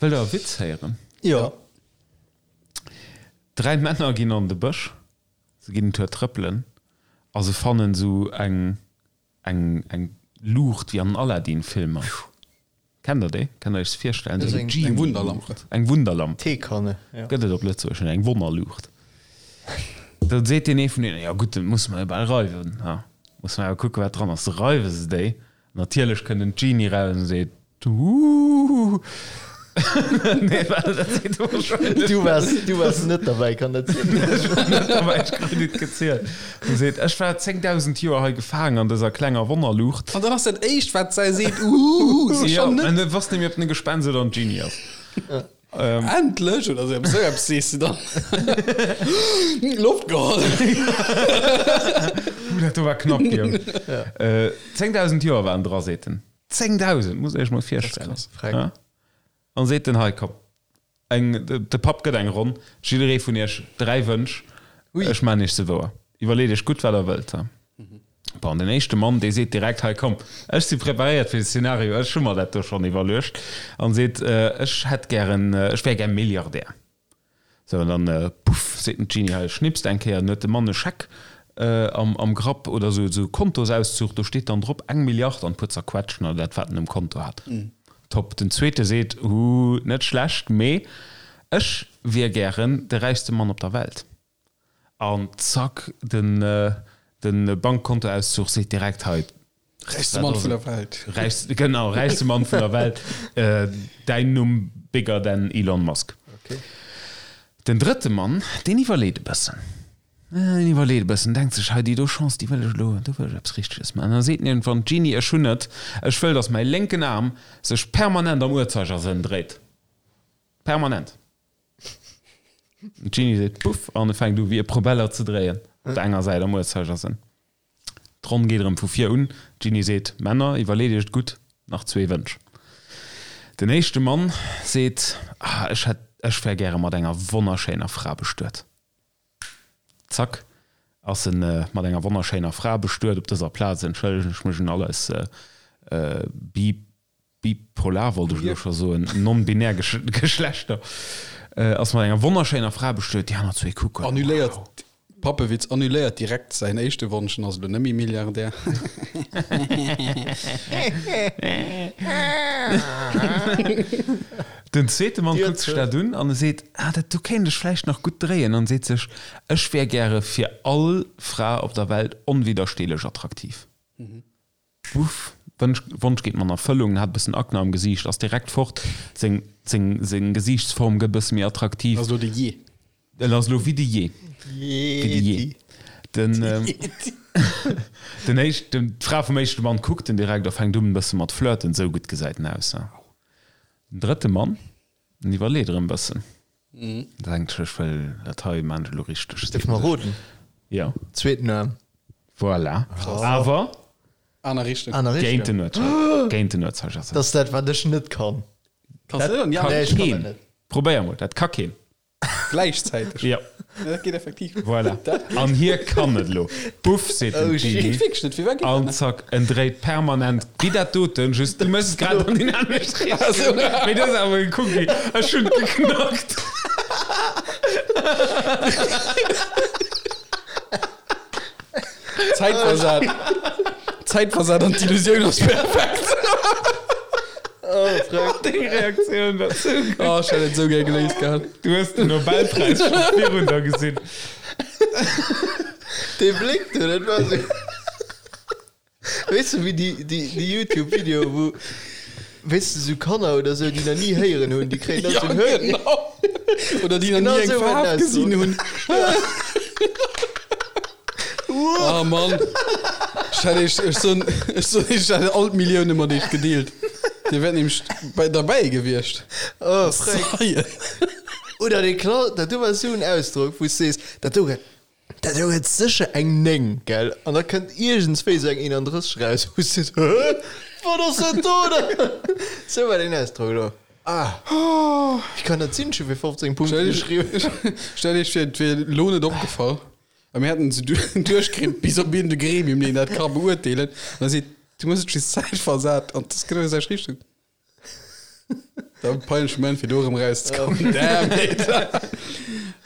Wëllt der e Witz héieren? Jo. Dräi Männer ginn an de Bësch, se ginn en Tour trëppelen a se fannen esou eng eng eng Luucht wéi an den Aladdin-Filmer. Kennt der déi? Kennt der iech se virstellen? Esou eng Eng Wunderlamp. Eng Wunderlamp. Teekanne, jo. Gëtt et op Lëtzebuergesch net, eng Wonnerluucht. Da seet deen ee vun deenen, jo gutt, dat musse mer jo bal reiwen, ha, musse mer awer kucken, wat dran ass. Da reiwe se déi. Natierlech kënnt en Genie raus an seet, Huuuh. Nee, well dat seet e wahrscheinlech Du waars, du waars net derbäi, kann dat sinn? Ech war net derbäi, ech krut et gezielt. En seet, Ech war 10.000 Joer hei gefaangen an dëser klenger Wonnerluucht. An dann ass dat éischt, wat säi seet, Uhuhu, Jo, schon net. an du wosst net méi, ob en e Gespenst oder en Genie ass. Endlech oder sou eppes, sou eppes sees de dann. Loft geholl. Huh, dat do war knapp, Guillaume. 10.000 Joer waren dra, seet en. 10.000, muss Iech mol virstellen. Dat ass krass. Ja. An seet en, hei komm, eng, de Papp gëtt eng Ronn, jidderee vun Iech 3 Wënsch, ech maan Iech se wouer. Iwwerleet Iech gutt, wat Der wëllt. Bon, den éischte Mann, dee seet direkt, hei komm, ech si preparéiert fir de Szenario, ech hu mer dat do schonn iwwerluecht, an seet, ech hätt gären, ech wär gär Milliardär. Sou, an dann, puff, seet den Genie, hei, schnipst eng Kéier, an huet de Mann e Scheck am Grapp oder sou, sou e Kontosauszug, do steet dann drop eng Milliard an e puer Zerquetschen oder dat, wat en um Konto hat. Top. Den zweete seet, Hu, net schlecht, mee ech wier gären de räichste Mann op der Welt. An zack, den Bankkontoauszug seet direkt, hei, Räichste Mann vun der Welt. Räichste, genau, räichste Mann vun der Welt. Däin Numm bigger than Elon Musk. Okay. Den drëtte Mann, deen iwwerleet e bëssen. Deen iwwerleet e bëssen, denkt sech, hei, déi do Chance, déi wëll ech elo, do wëll ech eppes Richteges maachen. An da seet en iergendwann, Jeanny, ech hunn et, ech wëll, datt mäi lénken Aarm sech permanent am Uhrzeigersënn dréit. Permanent. D'Jeanny seet Puff an e fänkt u wéi e Probeller ze dréien, op der enger Säit am Uhrzeigersënn. D'Ronn geet erëm vu vir un. D'Jeanny seet, Männer, iwwerleet iech et gutt, nach zwee Wënsch. Den éischte Mann seet, Ah, ech hätt, ech wär gäre mat enger wonnerschéiner Fra bestuet. Zack, ass en mat enger wonnerschéiner Fra bestuet. Op dëser Plaz entschëllegen ech mech un all eis Bi. Bipolar wollt ech elo scho soen, non-binär Geschlechter, ass mat enger wonnerschéiner Fra bestuet, déi aner zwee kucken. Annuléiert, Pappewitz, annuléiert direkt säin éischte Wonsch en ass elo net méi Milliardär. Den zweete Mann kuckt sech dat un an e seet, Ah, dat do kéint ech vläicht nach gutt dréien an seet sech, Ech wär gäre fir all Fra op der Welt onwiddersteelech attraktiv. Wuff, Wënsch, Wonsch geet mer an Erfëllung, hat e bëssen Akne am Gesiicht, ass direkt fort, seng, seng, seng Gesiichtsform gëtt e bësse méi attraktiv. Ass elo de Jee. En ass elo wéi de Jee. Wéi de Jee. Den, den éischt, den, d'Fra vum éischte Mann kuckt en direkt a fänkt un e bësse mat flirten, esou gutt gesäit en aus. Den drëtte Mann, en iwwerleet erëm e bëssen. Denkt sech, ech wëll dat hei maan ech elo richteg. Dierf mer roden? Jo. Zweeten Aarm. Voilà. Awer. Aner Richtung. Aner Richtung. Géint den Uhrzeiger. Géint den Uhrzeigersënn. Dat ass dat, wat ech net kann. Kanns du net? Dat Nee, ech kann dat keen. net. Probéier mol, dat ka keen. Gläichzäiteg. Jo. Ja, dat geet effektiv. Voilà. An hie kann et elo. Puff, seet den Oh, shit. Genie. Geet wierklech net. Firwat geet dat An net? zack, en dréit permanent wéi dat doten, just du méchs et grad an déi anescht Richtung. Mee du hues awer gekuckt wéi, ech hunn et geknackt. Zäitversat. Zäitversat an d'Illusioun ass perfekt. Oh, Freck. Deng Reaktioun war sou gutt. Oh, ech hätt et sou gär geléist gehat. Du hues den Nobelpräis scho virun der gesinn. Dee Bléck do, dat war sou. Weess de, wéi déi, déi, déi YouTube-Videoe, wou, weess de, sou Kanner oder sou, déi nach ni héieren hunn, déi kréien dann Ja, sou en Hör. genau. Oder déi nach Genau ni eng sou war Faarf den gesinn Ausdruck. hunn. Oh Mann. Ech hätt iech, ech soen, ech soen iech, ech hätt all d'Millioune mat iech gedeelt. Dir wäert nämlech bei, derbäi gewiescht. Oh, Freck. Zeien. Oder dee Kla, dat do war sou en Ausdrock, wou s sees, dat do gëtt, dat do gëtt sécher eng 9, gell? An da kënnt iergendswéi sou eng 31 raus, wou s sees, Hä? Wat ass dat do dann? Sou war deen Ausdrock elo. Ah. Wéi kann dat sinn? Ech hu fir 15 Punkte geschriwwen. Stellt iech vir, et wier elo net opgefall. A mir hätten se duerchkritt bis op iergend e Gremium, deen dat ka beurteelen. An da seet, du hues et just zäitversat an dat ass genau déi selwecht Richtung. Dat peinleche Moment fir do erëm rauszekommen. Damn it.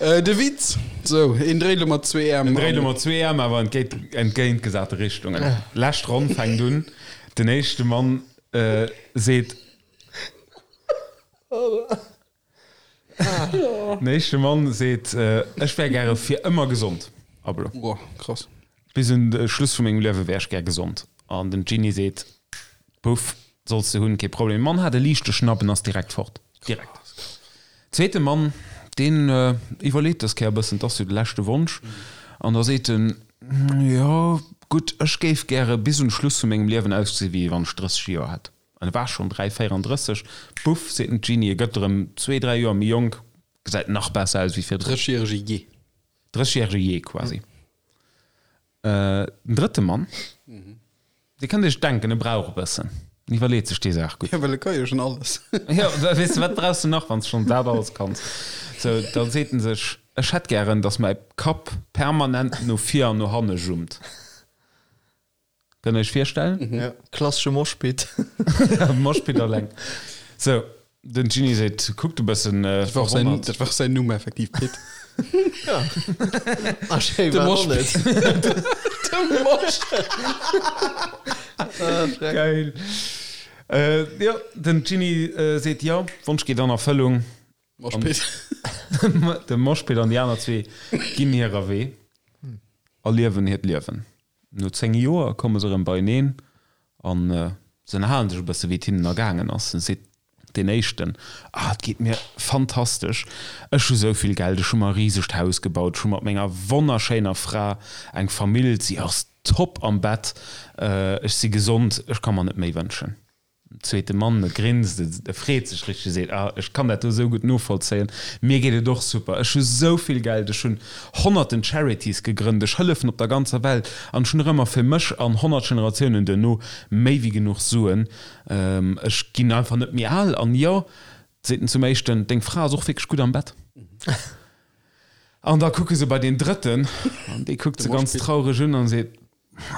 Äh, de Witz. Sou, een dréit elo mat zwee Äerm. En dréit elo mat zwee Äerm, awer entgéint, entgéintgesate Richtungen. Lescht Ronn fänkt un. Den éischte Mann äh, seet. Den éischte Mann seet, Ech wär gäre fir ëmmer gesond. Ablo. Boah, krass. Bis un de Schluss vu mengem Liewe wär ech gär gesond. An den Genie seet, Puff, solls de hunn, kee Problem. De Mann hat e liichte Schnapp en ass direkt fort. Direkt. Zweete Mann, deen iwwerleet dës Kéier e bëssen, 't ass jo de leschte Wonsch. An da seet en, Jo, gutt, ech géif gäre bis un de Schluss vu mengem Liewen ausgesi wéi wann ech 30 Joer hätt. An e war schonn 3, 34. Puff, seet den Genie, e gëtt erëm zwee, dräi Joer méi jonk, gesäit nach besser aus wéi virdrun. Drëssegjärege Jee. Drëssegjärege Jee quasi. Den drëtte Mann, Dir kënnt Iech denken, e brauch e bëssen, en iwwerleet sech déi Saach gutt. Jo, well e ka jo schonn alles. Jo, weess de, wat brauchs de nach, wann s de schonn dat alles kanns? Sou, da seet en sech, Ech hätt gären, datt mäi Kapp permanent no vir an no hanne jummt. Kënnt der iech virstellen? Ja, klassesche Moshpit. Moshpit alleng. Sou, den Genie seet, kuckt e bëssen Dat war och säin, verwonnert. dat war och säin Numm effektiv, Pit. Ja. A schéi De war och Moshpit. net. De Moshpit. Ah, Schreck. Geil. Äh, jo, den Genie seet, jo, Wonsch geet an Erfëllung. Moshpit. De Moshpit an déi aner zwee ginn hirer Wee a liewen hiert Liewen. No 10 Joer komme se erëm beieneen an se ënnerhalen sech e bësse wéi et hinnen ergaangen ass. Dann seet deen éischten, Ah, et geet mir fantastesch, ech hu sou vill Geld, ech hu mer e risegt Haus gebaut, ech hu mat menger wonnerschéiner Fra eng Famill, si ass top am Bett, ech si gesond, ech ka mer net méi wënschen. Zweete Mann, e grinst, e freet sech richteg, e seet, Ah, ech kann dat do esou gutt novollzéien, mir geet et och super, ech hu sou vill Geld, ech hunn honnerten Charities gegrënnt, ech hëllefen op der ganzer Welt an ech hunn nach ëmmer fir mech an 100 Generatiounen duerno méi wéi genuch Suen, ech ginn einfach net méi al. An jo, seet en zum éischten, deng Fra ass och wierklech gutt am Bett. An da kucke se bei deen drëtten an dee kuckt se ganz traureg un an seet,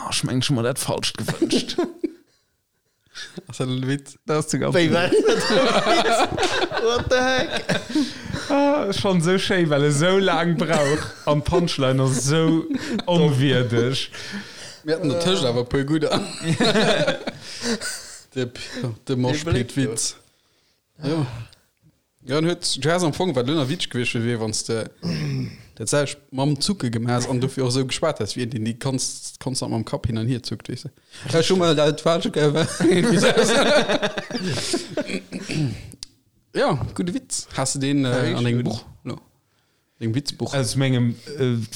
Ech mengen, ech hu mer dat Falscht gewënscht. Ass dat en Witz? Dat ass de ganze Wéi war dat e Witz? What the heck? Ah, schonn esou schéi, well e sou laang brauch an d'Punchline ass esou onwierdeg. Mir haten dertëscht awer e puer gudder. De, de Moshpit-Witz. Jo. Jo, en huet, du häss am Fong, wat elo nach witzeg gewiescht wier, wier wann s de dat selwecht mam Zucke gemaach häss an dofir och esou geschwat häss, wéi een, deen déi kons konstant mam Kapp hin an hier zuckt, weess de. Ech hu mol dat falsche ge Jo, gudde Witz. Has de deen an dengem Buch elo? Dengem Witzbuch? Aus mengem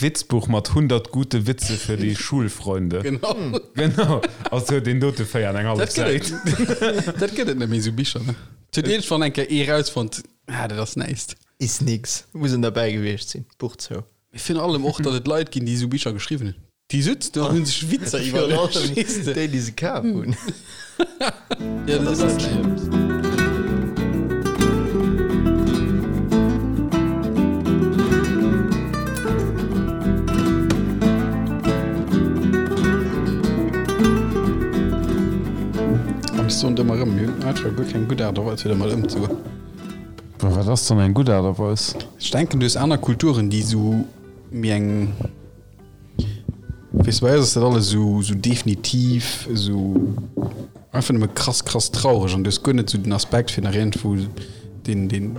Witzbuch mat 100 gute Witze für die Schulfreunde. Genau. Genau. Ass jo deen dote 4 an eng hallef Dat gëtt Säit. et, dat gëtt et net méi, esou Bicher, ne? Et huet iergendwann eng Kéier ee rausfonnt, ah, dat ass näischt. Is nix. Muss en derbäi gewiescht sinn. Buch zou. Mee virun allem och, datt et Leit ginn, déi esou Bicher geschriwwen hunn. Déi sutzen do an hunn sech Witzer Virun iwwerluecht, allem weess de. déi, déi se kaf hunn. Ja, dat ass net. An ech soen et ëmmer erëm, mir hunn einfach guer keng gutt Aart a Weis, fir dermat ëmzegoen. Wat ass dann eng gutt Aart a Weis? Ech denken, du hues aner Kulturen, déi esou méi eng, weess de, bei eis ass dat alles esou, esou definitiv, esou einfach nëmme krass, krass traureg an du hues guer net esou den Aspekt, fir nach iergendwou deen, deen,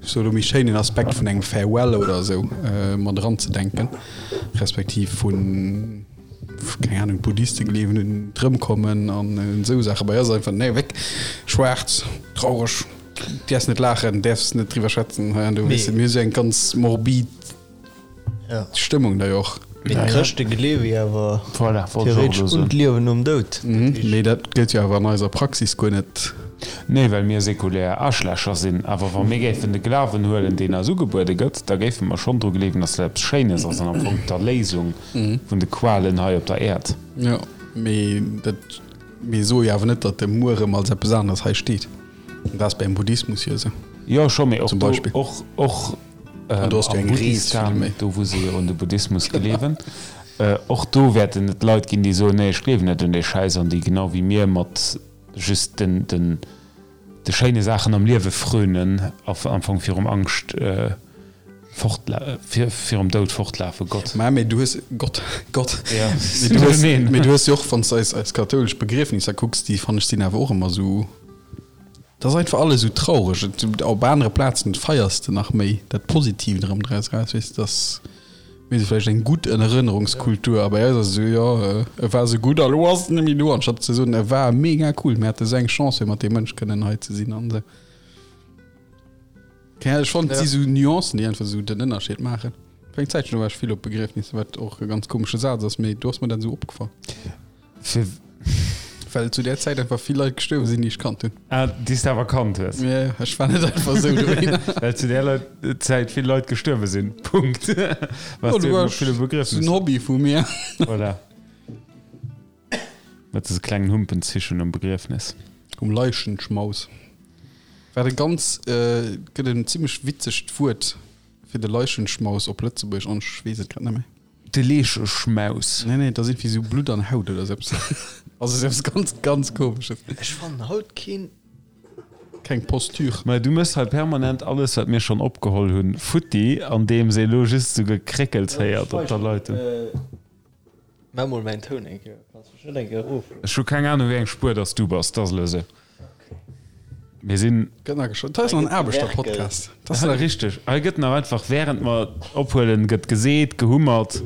ech soe lo méi schéinen Aspekt vun engem Farewell oder esou mat eranzedenken, respektiv vun. keng Ahnung, d'Buddhiste gleewen un d'Rëmkommen an un esou Saachen. Bei eis ass einfach, nee, wéck, schwaarz, traureg, däerfs net laachen, däerfs net driwwer schwätzen hei an do, weess de. Mir hu sou eng ganz morbid Stëmmung da jo och. Mee d'Chrëschte gleewe jo awer Voilà, wollt ech och theoretesch elo un soen. d'Liewen nom Doud. Mee dat gëllt jo awer an eiser Praxis guer net. Nee, well mir sekulär Aarschlächer sinn. Awer wa mir géifen de Glawen huelen, deen eis ugebuede gëtt, da géife mer schonn dru gleewen, dass dat eppes Schéines ass an am Fong d'Erléisung vun de Qualen hei op der Äerd. Jo, mee dat, mir soe jo awer net, datt de Muerem als eppes aneres hei steet. An dat ass beim Buddhismus jo esou. Jo, scho, mee och Zum do, Beispill. och, och An do ass jo am eng Rees Buddhistan, vill méi. do wou se jo un de Buddhismus gleewen, och do wäerten et Leit ginn, déi soen, nee, ech gleewen net un dee Schäiss an déi genau wéi mir mat just den, den. De schéine Saachen am Liewe frönen a am Fong virum Angscht virum Doud fortlafen. Gott. Mä mee du hues, Gott, Gott, mee du hues, mee du hues jo och, wann s de eis, eis kathoulesch Begriefnisser kucks, déi fannen ech sinn awer och ëmmer esou, dat ass einfach alles esou traureg. Et, op anere Plazen feiers de nach méi dat Positiivt erëm draus eraus, weess de, dass. Mir si vläicht eng gutt Erënnerungskultur a bei eis ass et esou, jo, e war esou gutt a lo ass en net méi do, anstatt ze soen, e war mega cool, mir hate esou eng Chance fir mat deem Mënsch kënnen hei ze sinn an esou. Keng Ahnung, ech fannen, et si sou Nuancen, déi einfach esou den Ënnerscheed maachen. Fir eng Zäitchen do war ech vill op Begriefnisser, wat och e ganz komesche Saz ass, mee do ass mer dat esou opgefall. Fir. Well zu där Zäit einfach vill Leit gestuerwe sinn, déi ech kannt hunn. Ah, déi s de awer kannt hues. Ja, ja, ech war net einfach esou dohinner. Well zu där Leit, Zäit vill Leit gestuerwe sinn. Punkt. Waars du eben op ville Begriefnisser. Dat ass en Hobby vu mir. Voilà. Mat dëse klengen Humpenzischen um Begriefnis. Um Leichenschmaus. Wat e ganz, gëtt en zimmlech witzegt Wuert fir de Leichenschmaus op Lëtzebuergesch an ech weess et grad net méi. De Leecheschmaus. Nee, nee, et ass iergendwéi sou Blutt an Haut oder sou eppes. Also sou eppes ganz, ganz Komesches. Ech fannen haut keen. Keng Posture. Mä du mëss hei permanent alles, wat mir schonn opgeholl hunn, futti, andeems ee lo just sou Gekréckels héiert op der Leitung. Maach mol mäin Toun eng Kéier. Kanns mech net eng Kéier erof. Ech hu keng Anung, wéi eng Spuer dass du bass. Dat ass elo sou. Mir sinn. Gëtt nach geschwat. Dat ass nach en Aarbechterpodcast. Dat ass richteg. Hei gëtt nach einfach während mer ophuelen, gëtt geseet, gehummert.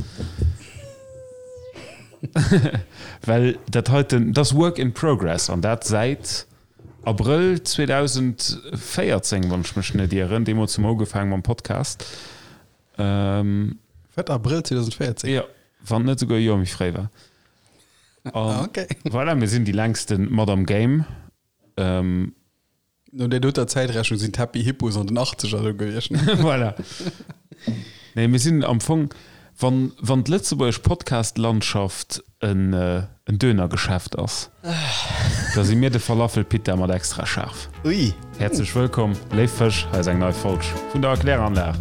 Well dat heiten, dat ass Work in Progress an dat säit Abrëll 2014, wann ech mech net ieren. Deemools hu mer ugefaangen mam Podcast. Wat, Abrëll 2014? Jo, wann et net esouguer e Joer méi fréi war. An voilà, mir sinn déi längste mat am Game. Ähm, No där doter Zäitrechnung sinn d'Happy Hippos an den Achtzeger do gewiescht. Voilà. Nee, mir sinn am Fong, wann, wann d'lëtzebuergesch Podcast-Landschaft en, en Dönergeschäft ass, da si mir de Falafel-Pita mat extra schaarf. Ui. Häerzlech wëllkomm, léif Fësch, hei ass eng nei Folg vun der Erkläranlag.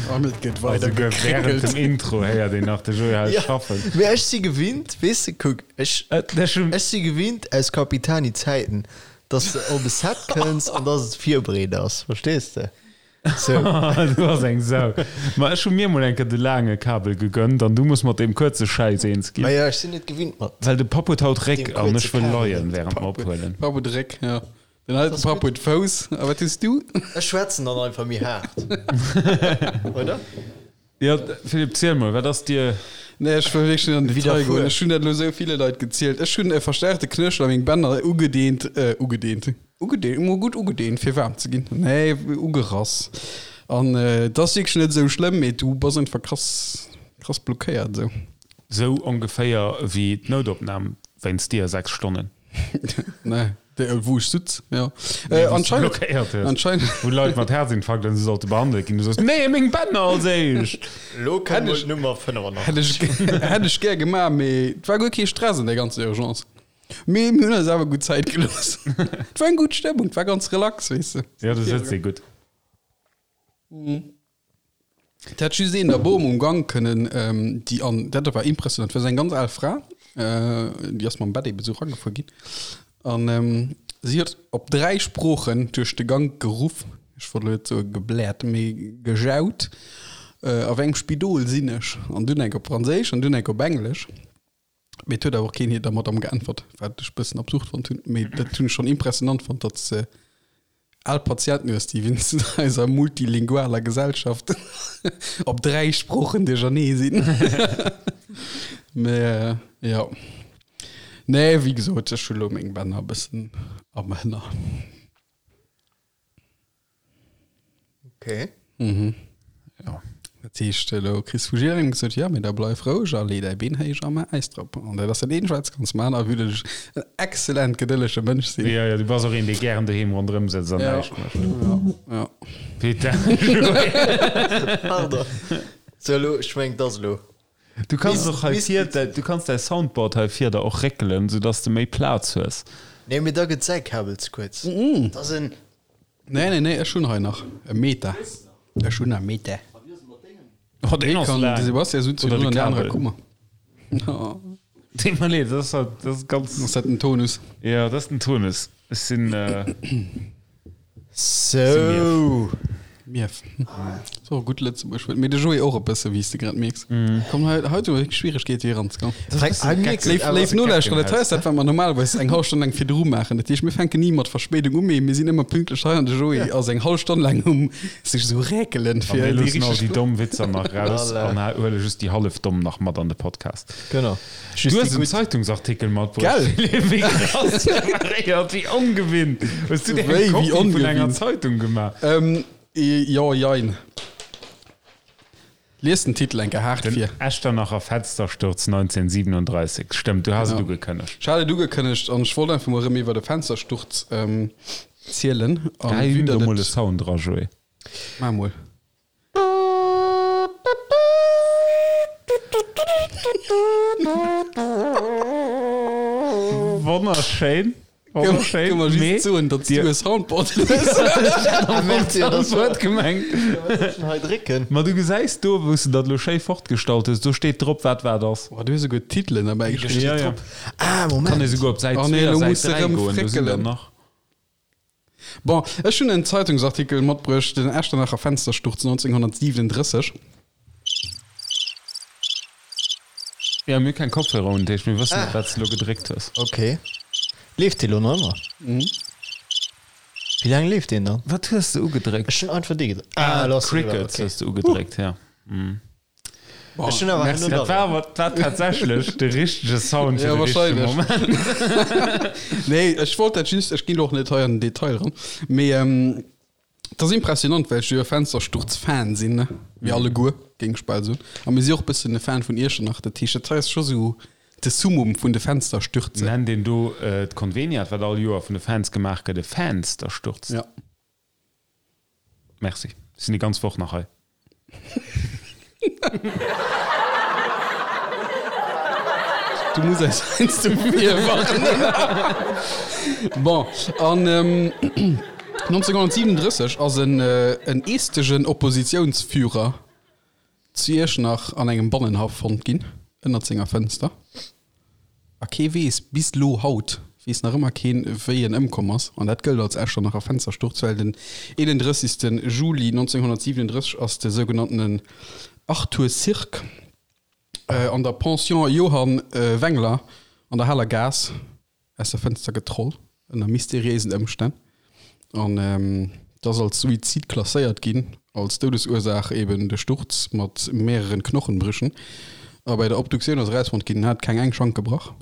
An et gëtt weider gekréckelt. Während dem Intro héiert een nach de Joé hei schaffen. Mee ech si gewinnt, weess de, kuck, ech, ech si gewinnt aus Capitani-Zäiten, dass de op e Set kënns an dass et virbereet ass, verstees de? Sou. Du bass eng Sau. Ma ech hu mir mol eng Kéier de laange Kabel gegönnt an du muss mat deem kuerze Schäiss eens ginn. Ma jo, ech sinn net gewinnt mat. Well de Papp huet haut Réck an ech wëll leien während mer ophuelen. Papp huet Réck, jo. Den alten Papp huet Fouss. A wat hues du? Ech schwätzen dann einfach méi haart, oder? Jo, Philippe, ziel mol, wat ass dir. Nee, ech wëll wierklech net an den Detail goen. Ech hunn dat elo esou ville Leit gezielt. Ech hunn e verstärkte Knéchel a meng Bänner ugedeent, ugedeent, ugedeent, emol gutt ugedeent, fir waarm ze ginn. Nee, ugerass. An et ass wierklech net esou schlëmm, mee du bass einfach krass, krass blockéiert esou. Esou ongeféier wéi d'Noutopnam wéinst dir, 6 Stonnen. Nee, wou ech sutz, jo. Nee, wou s du blockéiert hues. Anscheinend. Wou Leit mat Herzinfarkt an esou sollte behandelt ginn. Du soos, Nee, meng Bänner als éischt! Lo kënnt mol d'Nummer 85. Hätt ech, hätt ech gär gemaach, mee et war guer kee Stress an der ganzer Urgence. Mee mir hunn eis awer gutt Zäit gelooss. Et war eng gutt Stëmmung, et war ganz relax, weess de. Jo, du sëtz ee gutt. Et hätt just een der Bom um Gank kënnen, déi an, dat war impressionant, war esou eng ganz al Fra, déi ass mam Bett eben esou eragefuer ginn an si huet op 3 Sproochen duerch de Gank geruff, ech wollt elo net soe gebläert, mee gejaut, a wéi engem Spidol sinn ech? An dunn eng op Franséisch an dunn eng op Englesch. Mee et huet awer och keen hir der Madame geäntwert, wat ech bëssen absurd fonnt hunn. Mee dat hunn ech schonn impressionant fonnt, datt s de al Patienten hues, déi wéinst eiser multilingualer Gesellschaft op 3 Sproochen duerchernee sinn. Mee jo. Nee, wéi gesot, ech hu lo meng Bänner e bëssen am Hënner. Okay. Mhm. Ja. Dat heescht, elo kriss vu jidderengem gesot, ja, mee da bleif roueg a lee däi Been héich a maach Äis drop. An dat ass dat eenzegt, wat s kanns maachen, a vue dass ech en exzellent gedëllege Mënsch sinn. Ja, ja, du bass och een, dee gären doheem ronderëm sëtzt an Ja. näischt mécht. Ja, ja. Peter. Pardon. So, elo, ech mengen, 't ass elo. Du kanns och hei vir, du kanns däi Soundboard hei vir der och réckelen, sou dass de méi Plaz hues. Nee, mee da gëtt säi Kabel ze kuerz. Dat ass en. Nee, nee, nee, ech hunn hei nach e Meter. Ech hunn e Meter. Oh, deen ass Kann de laang. Sebastian sutzt Oder virdrun de an der anerer Kabel. Kummer. Dee mer leed, dat ass halt, dat ass ganz. Ass dat den Tonus? Jo, dat ass den Tonus. Ech sinn. Sou. Mief. Ass och e gutt Lëtzebuerg Wuert. Mee de Joé och e bësse, wéi s de grad mierks. Komm, hei, hei hu mer Schwieregkeete fir eranzekommen. Léif, léif Nolauschterer, dat hei ass dat, wat mer normalerweis eng hallef Stonn laang virdru maachen. Dat heescht, mir fänken ni mat Verspéidung u, mee mir sinn ëmmer pünktlech hei an de Joé ass eng hallef Stonn laang um sech esou räkelen, A fir mir déi loossen all richteg déi domm Witzer nach raus an huele just déi hallef domm nach mat an de Podcast. Genau. Du hues en Zeitungsartikel matbruecht, Philippe. Wéi krass preparéiert, wéi ongewinnt. Hues du dir eng Kopie vun enger Zeitung gemaach? Jo, jein. Lies den Titel eng Kéier haart Den vir. Echternacher Fenstersturz 1937. Stëmmt, du has et ugekënnegt. Ech hat et ugekënnegt an ech wollt einfach mol erëm iwwer e Fenstersturz zielen. Gehäi him do mol e Sound dra, Joé. Maach mol. Wonnerschéin. Wonnerschéin. Kënne mer just soen, datt s du e Soundboard hues. Merci, dat ass Soundboard gemengt. Hei drécken. Ma du gesäis do, wou s de dat elo schéi fortgestallt hues, do steet drop, wat wat ass. Oh, du hues esouguer d'Titelen derbäi geschriwwen. Ja, ja. Ah, Moment. Kann ee souguer op Säit Oh nee, 2 a elo Säit muss de 3 erëm goen, do sinn der fréckelen. nach. Bon, ech hunn en Zeitungsartikel matbruecht, den Echternacher Fenstersturz 1937. Ja, mir hu keng Kopfhörer un, dat heescht mir wëssen net, wat s de elo gedréckt hues. Ok. Leeft dee lo nach ëmmer? Wéi laang leeft deen dann? Wat hues de ugedréckt? Ech hunn einfach dee gedréckt. Ah, lo ass en eriwwer, Crickets ok. hues de ugedréckt, ja. Ech hunn awer Merci. Dat war awer dat war tatsächlech de richtege Sound fir Ja, de richtege wahrscheinlech. Moment. Nee, ech wollt dat just, ech ginn elo och net hei an den Detail eran, mee et ass impressionant, well ech jo e Fenstersturz-Fan sinn, ne? Mir alleguer, géing ech bal soen. A mir si och e bëssen e Fan vun Iechternach, dat heescht, dat hei ass scho sou de Summum vun de Fensterstürze. Nennt een do d'Conveniat, wat all Joer vun de Fans gemaach gëtt, e Fanstersturz? Ja. Merci. Ech sinn déi ganz Woch nach hei. Du muss eis heiansdo virwarnen. Bon, an 1937 ass en en estegen Oppositiounsführer zu Iechternach an engem Bannenhaff fonnt ginn, ënnert senger Fënster. A kee weess, bis lo haut weess nach ëmmer keen, wéi en ëmkomm ass. An dat gëllt als Echternacher Fenstersturz, well den 31. Juli 1937 ass de sougenanntenen Arthur Sirk an der Pension Johann Wengler an der Haler Gaass aus der Fënster getroll, ënner mysteriéisen Ëmstänn. An et ass als Suizid klasséiert ginn, als Doudesursaach eben de Sturz mat mehreren Knochenbrüchen. A bei der Obduktioun ass erausfonnt ginn, en hat keng eng Schank gebrach.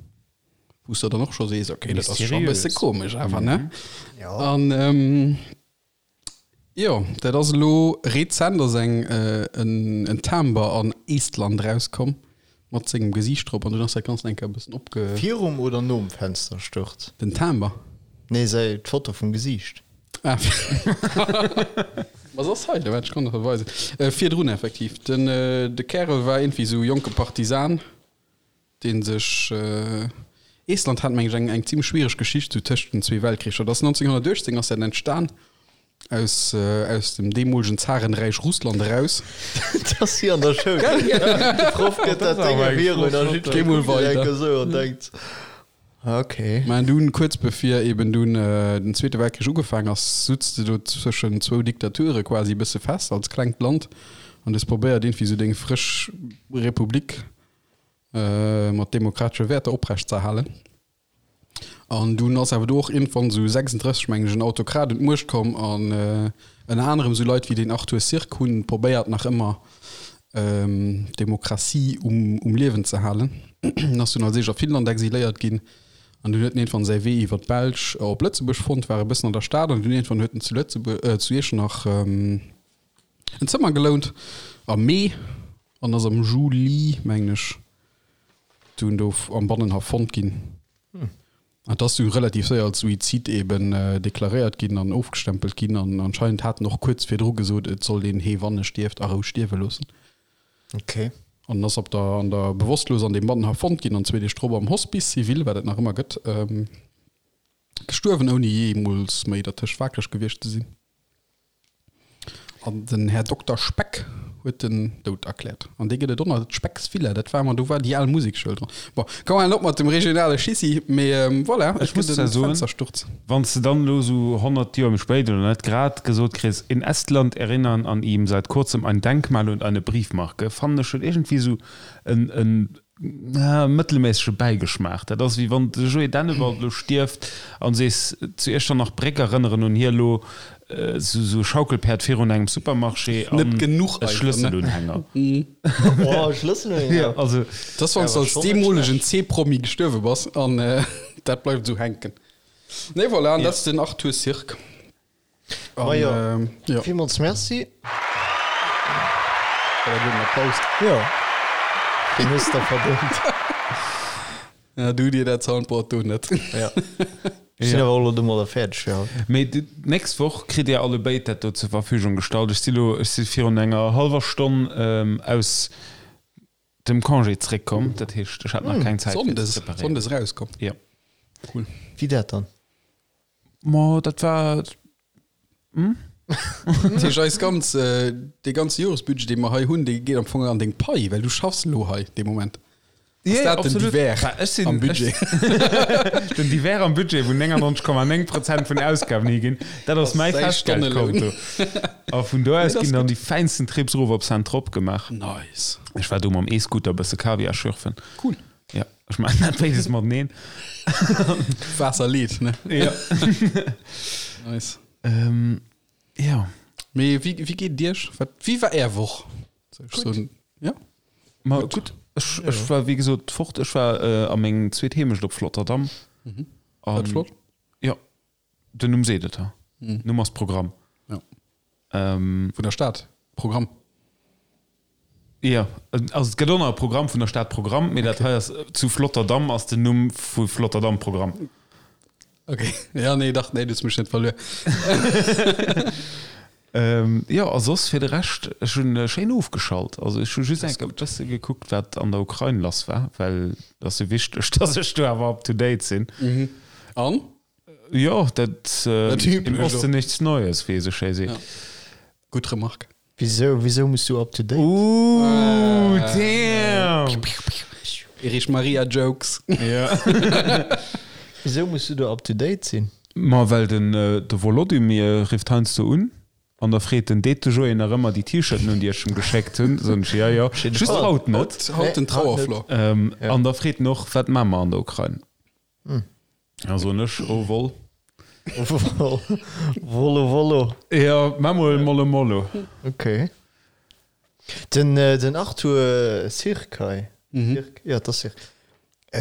Wou s de dann och scho sees, okay, dat ass scho e bësse komesch awer, ne? An Jo, dat ass elo rezent ass eng en Timber an Estland rauskomm mat sengem Gesiicht drop an dunn ass dat Ganzt eng Kéier e bëssen opge. Virum oder nom Fenstersturz? Den Timber? Nee, säi d'Foto vum Gesiicht. Ah, ma se ass hei, waart ech kann der weisen. Virdrun effektiv. Den de Kärel war iergendwéi esou jonke Partisan. dee sech, Estland hat meng ech eng eng zimlech schwiereg Geschicht sou tëscht den zwee Weltkricher. Dat ass 1918 ass dat entstan aus aus dem deemolegen Zarenräich Russland eraus. Dat ass wéi an der Schoul. De Proff gëtt dat Déng virun a Geh mol jiddweree kuckt weider. enke sou an denkt, okay. Mä dunn, kuerz bevir eben dunn den Zweete Weltkrich ugefaang ass, sutz de do zwëschen zwou Diktature quasi e bësse fest als klengt Land an hues probéiert iergendwéi sou deng frësch Republik mat demokratesche Wäerter oprecht ze erhalen. An dunn ass awer do och iergendwann esou 36, mengen ech, en Autokrat un d'Muecht komm an ënner anerem esou Leit wéi deen Arthur Sirk hunn probéiert nach ëmmer d'Demokratie um um Liewen ze halen. En ass dunn als éischt a Finnland exiléiert ginn an dunn huet en iergendwann säi Wee iwwer d'Belsch op Lëtzebuerg fonnt, war e bëssen an der Stad an dunn iergendwann huet en zu Lëtzebuerg, zu Iechternach en Zëmmer gelount am Mee an ass am Juli, mengen ech, dunn do am Bannenhaff fonnt ginn. An et ass du relativ séier als Suizid eben deklaréiert ginn an ofgestempelt ginn an anscheinend hat en och kuerz virdru gesot, et sollt een hee wann e stierft a Rou stierwe loossen. Okay. An en ass op der, an der bewosstlos an deem Mann fonnt ginn an zwee Deeg drop am Hospice civil, wat et nach ëmmer gëtt, gestuerwen, ouni jeemools méi dertëscht waakreg gewiescht ze sinn. An den Här Dokter Speck huet den Doud erkläert. An dee gëtt et och nach, d'Specks Villa, dat war emmer, do war déi al Musekschoul dran. Bon, komm halen op mat dem regionale Schissi, mee voilà, et Ech muss gëtt zwar en soen, Fenstersturz. wann s de dann elo esou 100 Joer méi spéit oder net grad gesot kriss, In Estland erinnern an ihm seit kurzem ein Denkmal und eine Briefmarke, fannen ech huet iergendwéi esou en, en mëttelméissege Bäigeschmaach. Dat ass wéi wann de Joé Dennewald elo stierft an sees, zu Iechternach Bréck erënneren un hie elo esou e Schaukelpäerd virun engem Supermarché an Net genuch e einfach, ne? Schlësselunhänger. Oh, Schlësselunhänger. Also, Dat ass, wann s de als deemolegen C-Promi gestuerwe bass an dat bleift esou hänken. Nee, voilà, an dat ass den Arthur Sirk. Ma jo, villmools Merci. War dat elo en Applaus? Jo, deen hues de verdéngt. Ja, du dir dat Soundboard do net. Ja. Ech sinn awer och elo domadder fäerdeg fir haut. Mee d'nächst Woch kritt Dir allebéid dat do zur Verfügung gestallt. Ech si lo, ech si virun enger hallwer Stonn aus dem Congé zréckkomm, dat heescht, ech hat nach keng Zäit fir ze Sonndes, preparéieren. Sonndes erauskomm. Jo. Cool. Wéi dat dann? Ma dat war. Hm? Dat heescht, eis ganz, dee ganze Joresbudget, dee mer hei hunn, dee geet am Fong an deng Pai, well du schaffs elo hei dee Moment. Ass dat den Divers am Budget? Den Divers am Budget, wou 99,9 Prozent vun Ausgaben higinn, dat ass mäi Festgeldkonto. A vun do aus ginn dann déi fäinsten Trips erof op Saint-Tropes gemaach. Nice. Ech war do mam E-Scooter e bësse Kaviar schürfen. Cool. Ja, ech maachen dat béides mateneen. Waasser leet, ne? Ja. Nice. Ähm, ja. Mee wéi, wéi geet et Iech? Wat, wéi war Är Woch? Soll ech soen? Ja? Ma gutt. Ech, ech war wéi gesot fort. Ech war äh, a meng zweet Heemecht op Flotterdam. Mhm. War dat flott? Ja. Den Numm seet et, ha. Numm ass Programm. Ja. Ähm. Vun der Stad Programm. Jo, also et gëtt och nach e Programm vun der Stad Programm, mee dat hei ass zu Flotterdam ass den Numm vu Flotterdam Programm. Ok, ja nee dach, nee du hues mech net verluer. Jo, a soss fir de Rescht, ech hunn schéin ofgeschalt. Also ech hu just eng Kéier e bësse gekuckt, wat an der Ukrain lass war, well et ass jo wichteg, datt ech do awer up to date sinn. An? Jo, dat im Osten nichts Neues, wéi ee sou schéi seet. Gutt Remarque. Wisou, wisou muss du up to date? Ooh, damn! Erich Maria Jokes. Ja. Wisou muss du do up to date sinn? Ma well den de Volodymyr rifft heiansdo un an da freet en, Deet de Joé nach ëmmer déi T-Shirten un, déi ech em geschéckt hunn? Soen ech, Jo, jo, just haut net. Haut den Trauerflor. An da freet en och, Wat maache mer an der Ukrain? Da soen ech, Oh voll. Wollo wollo. Jo, maa mol mollo mollo. Ok. Den, den Arthur Sirk hei, Sirk, jo, et ass Sirk.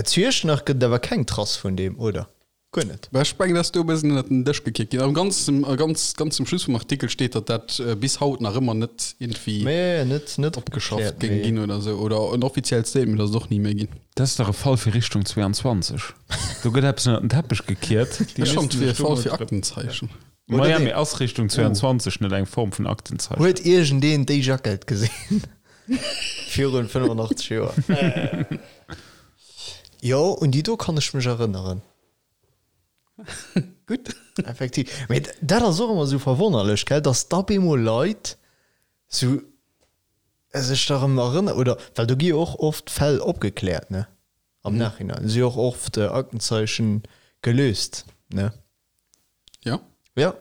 Zu Iechternach gëtt et awer keng Trass vun deem, oder? Guer net. Ech mengen, dass do e bëssen ënnert den Dësch gekickt ginn. Am ganz, ganz, ganz zum Schluss vum Artikel steet, datt dat bis haut nach ëmmer net iergendwéi Mee net, net opgeschafft opgekläert, géing mee. ginn oder esou. Oder en offiziellt Statement ass et och ni méi ginn. Dat ass dach e Fall fir Richtung 22. Do gëtt eppes ënnert den Teppech gekiert. Déi Ech fannen, et missten wier e sech do Fall mol fir drëm. Aktenzeichen. Oder Maja, nee. mee ass Richtung 22 net eng Form vun Aktenzeichen? Huet iergendeen déi Jackett gesinn? Virun 85 Joer. Jo, un déi do kann ech mech erënneren. Gutt. Effektiv. Mee dat ass och ëmmer esou verwonnerlech, gell, dass da bemol Leit sou sech da rëm erënneren, oder well do gi jo och oft Fäll opgekläert, ne, am Nachhinein si jo och oft Aktenzeichen gelöst, ne? Ja. Ja.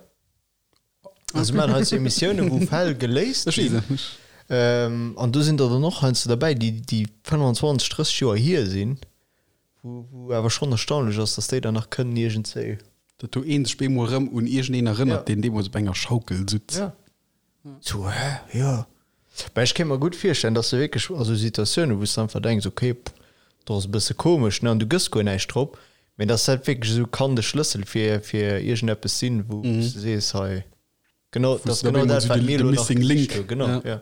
Also mir maachen heiansdo Emissiounen, wou Fäll geléist ginn. An do sinn der dann och heiansdo derbäi, déi déi 25, 30 Joer hier sinn, wou wou awer schonn erstaunlech ass, datt déi dann nach kënnen iergendzéi. Datt do een sech bemol erëm un iergendeen erënnert, Ja. deen deemools op enger Schaukel sutz. Ja. Sou, hä? Jo. Mä ech kéint mer gutt virstellen, datt se wierklech a sou Situatiounen, wou s de einfach denks, okay, pff, do ass e bësse komesch, ne, an du gëss guer näischt drop, mä datt dat wierklech esou kann de Schlëssel fir, fir iergendeppes sinn, wou s de sees, hei, genau, dat ass du da genau bemol dat, sou wat de- mir de elo nach missing gesicht link. hunn. Genau, Ja. ja.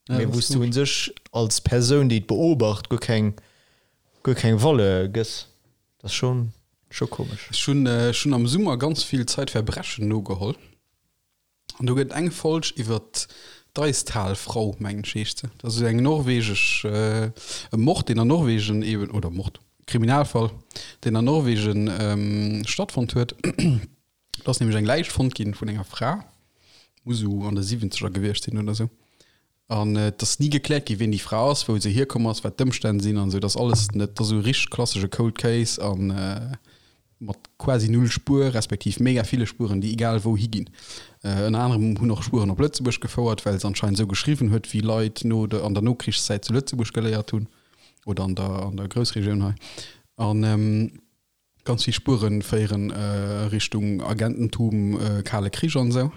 Ja, Mee dat wou ass s du komesch. un sech als Persoun, déi et beobacht, guer keng, guer keng Valeur gëss. Dat ass schonn, scho komesch. Ech hunn, ech hunn am Summer ganz vill Zeitverbrechen nogeholl. An do gëtt eng Folg iwwer. D'Eistalfrau, mengen ech heescht se. Dat ass esou eng norwegesch, e Mord, deen an Norwegen eben, oder Mord, Kriminalfall, deen an Norwegen stattfonnt huet. Do ass nämlech eng Läich fonnt ginn vun enger Fra, muss esou an de Siwwenzeger gewiescht sinn oder esou. An et ass ni gekläert ginn, wien déi Fra ass, wou se hierkomm ass, wat d'Ëmstänn sinn an esou. Dat ass alles net, dat ass esou e richteg klassesche Cold Case a mat quasi null Spuer, respektiv mega ville Spueren, déi egal wou higinn. Ënner anerem hunn och Spueren op Lëtzebuerg gefouert, well se anscheinend esou geschriwwen huet, wéi Leit no der, an der Nokrichszäit zu Lëtzebuerg geléiert hunn oder an der, an der Groussregioun hei. An ganz vill Spuere féieren Richtung Agententum, Kale Krich an esou.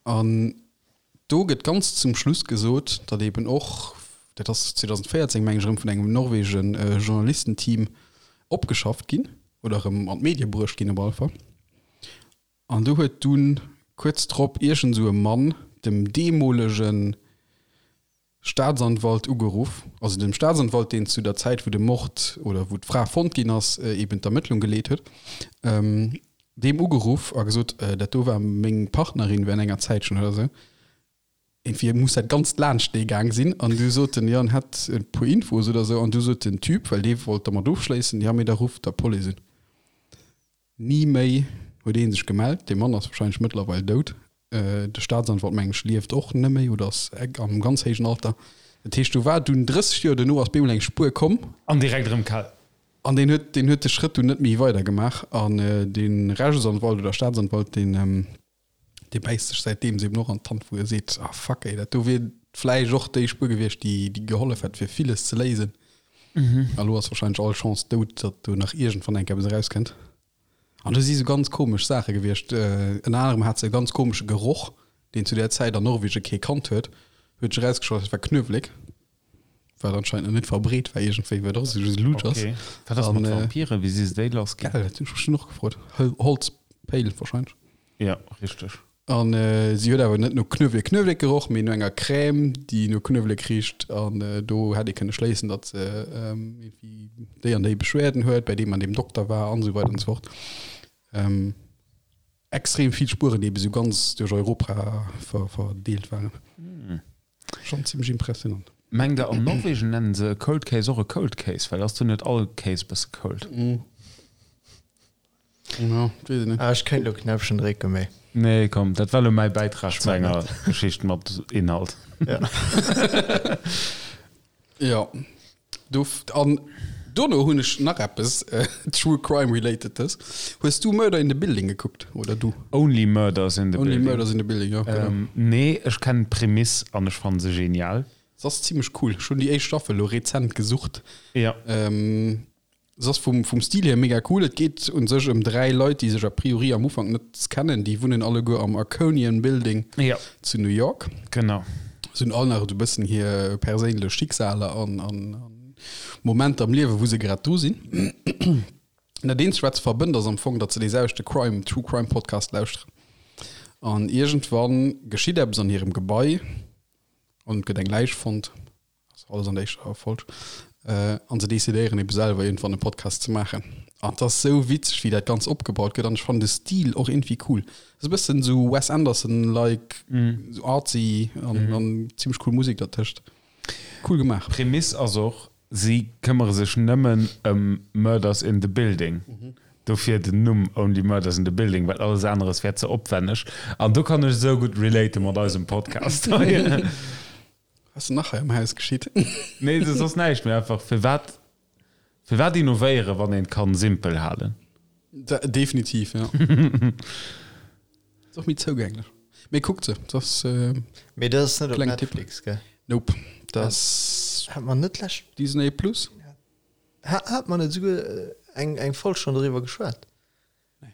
An do gëtt ganz zum Schluss gesot, datt eben och, dat ass 2014 meng ech erëm vun engem norwege Journalistenteam opgeschafft ginn oder erëm an d'Medie bruecht ginn op alle Fall. An do huet dunn kuerz drop iergend esou e Mann dem deemolegen Staatsanwalt ugeruff, also dem Staatsanwalt, deen zu der Zäit, wou de Mord oder wou d'Fra fonnt ginn ass, eben d'Ermëttlung geleet huet, deem ugeruff a gesot, dat do war meng Partnerin während enger Zäitchen oder esou. Irgendwie muss dat Ganzt laanscht dee gaang sinn. An du sot en, jo, en hätt e puer Infos oder esou. An du sot den Typ, well dee wollt dermat ofschléissen, jo, mee da rufft der Police un. Ni méi huet ee sech gemellt. Dee Mann ass warscheinlech mëttlerweil dout. De Staatsanwalt, mengen ech, lieft och net méi oder ass am ganz héijen Alter. Dat heescht, do war dunn 30 Joer duerno ass bemol eng Spuer komm. An direkt erëm kal. An deen huet, deen huet de Schrëtt dunn net méi weider gemaach. An de Rechtsanwalt oder Staatsanwalt, deen, dee bäisst sech säitdeems eben och an d'Hand, wou e seet, Ah fuck ey, dat do wier vläicht och déi Spuer gewiescht, déi, déi gehollef hätt fir villes ze léisen. A lo ass wahrscheinlech all Chance dout, datt do nach iergendwann eng Kéier eppes erauskënnt. An do si sou ganz komesch Saache gewiescht. Ënner anerem hat se e ganz komesche Geroch, deen zu där Zäit an Norwegen kee kannt huet. Huet sech erausgestallt, et war Knuewelek, wat anscheinend nach net verbreet war iergendwéi, wat och esou lusch ass. Okay. Wat ass mat Vampiren? Wéi si se déi lass ginn? Gell, dat hunn ech mech dunn och gefrot. Holzpéil wahrscheinlech. Ja, richteg. An si huet awer net no Knuewelek Knuewelek geroch, mee no enger Crème, déi no Knuewelek richt. An do hätt ee kënne schléissen, datt se iergendwéi déi an déi Beschwerden huet, bei deem an deem Dokter war an esou weider an esou fort. Extrem vill Spueren, déi ebe sou ganz duerch Europa verdeelt waren. Schonn zimmlech impressionant. Mengt der an Norwegen nennen se e Cold Case och e Cold Case? Well ass do net all Case bësse cold? Ja, weess ech net. Ah, ech kéint lo Knäppchen drécken, mee. Nee, komm, dat war lo mäi Bäitrag zu enger Geschicht mat Inhalt. Ja. Ja, do, an dono hunn ech nach eppes True Crime relatedes. Hues du Murder in the Building gekuckt, oder du? Only Murders in the Only Building. Murders in the Building, ja, genau. Ähm, nee, ech kennen d'Prämiss an ech fannen se genial. Se ass zimmlech cool. Ech hunn déi éischt Staffel lo rezent gesucht. Ja. Ähm, Se ass vum, vum Stil hier mega cool. Et geet un sech ëm 3 Leit, déi sech a priori am Ufank net kennen. Déi wunnen alleguer am Arconian Building ja. zu New York. Genau. Se hunn all nach esou e bëssen hir perséinlech Schicksaler an, an, an Momenter am Liewe, wou se grad dru sinn. Dat eenzegt, wat se verbënnt, ass am Fong, datt se dee selwechte Crime, True Crime Podcast lauschteren. An iergendwann geschitt eppes an hirem Gebai an et gëtt eng Läich fonnt. Ass alles an der éischter Folg. Äh, an se decidéieren ebe selwer iergendwann e Podcast ze maachen. An et ass sou witzeg, wéi dat Ganz opgebaut gëtt. An ech fannen de Stil och iergendwéi cool. Ass e bëssen sou Wes Anderson-like, sou artsy an, an zimmlech cool Musek dertëscht. Cool gemaach. D'Prämiss ass och, si këmmere sech nëmmen ëm Murders in the Building. Dofir den Numm Only Murders in the Building, well alles aneres wär ze opwänneg. An do kann ech esou gutt relate mat eisem Podcast hei. Was nach hei am Haus geschitt? Nee, soss ass näischt, mee einfach firwat firwat innovéieren, wann een et kann simpel halen? Definitiv, ja. Ass och méi zougänglech. Mee kuckt se, dat ass Mee dat ass net op Kleng Tipp. Netflix, gell? Nope, dat ass Hat mer net lescht Disney Plus. Hat mer net esouguer eng eng Folg schonn doriwwer geschwat,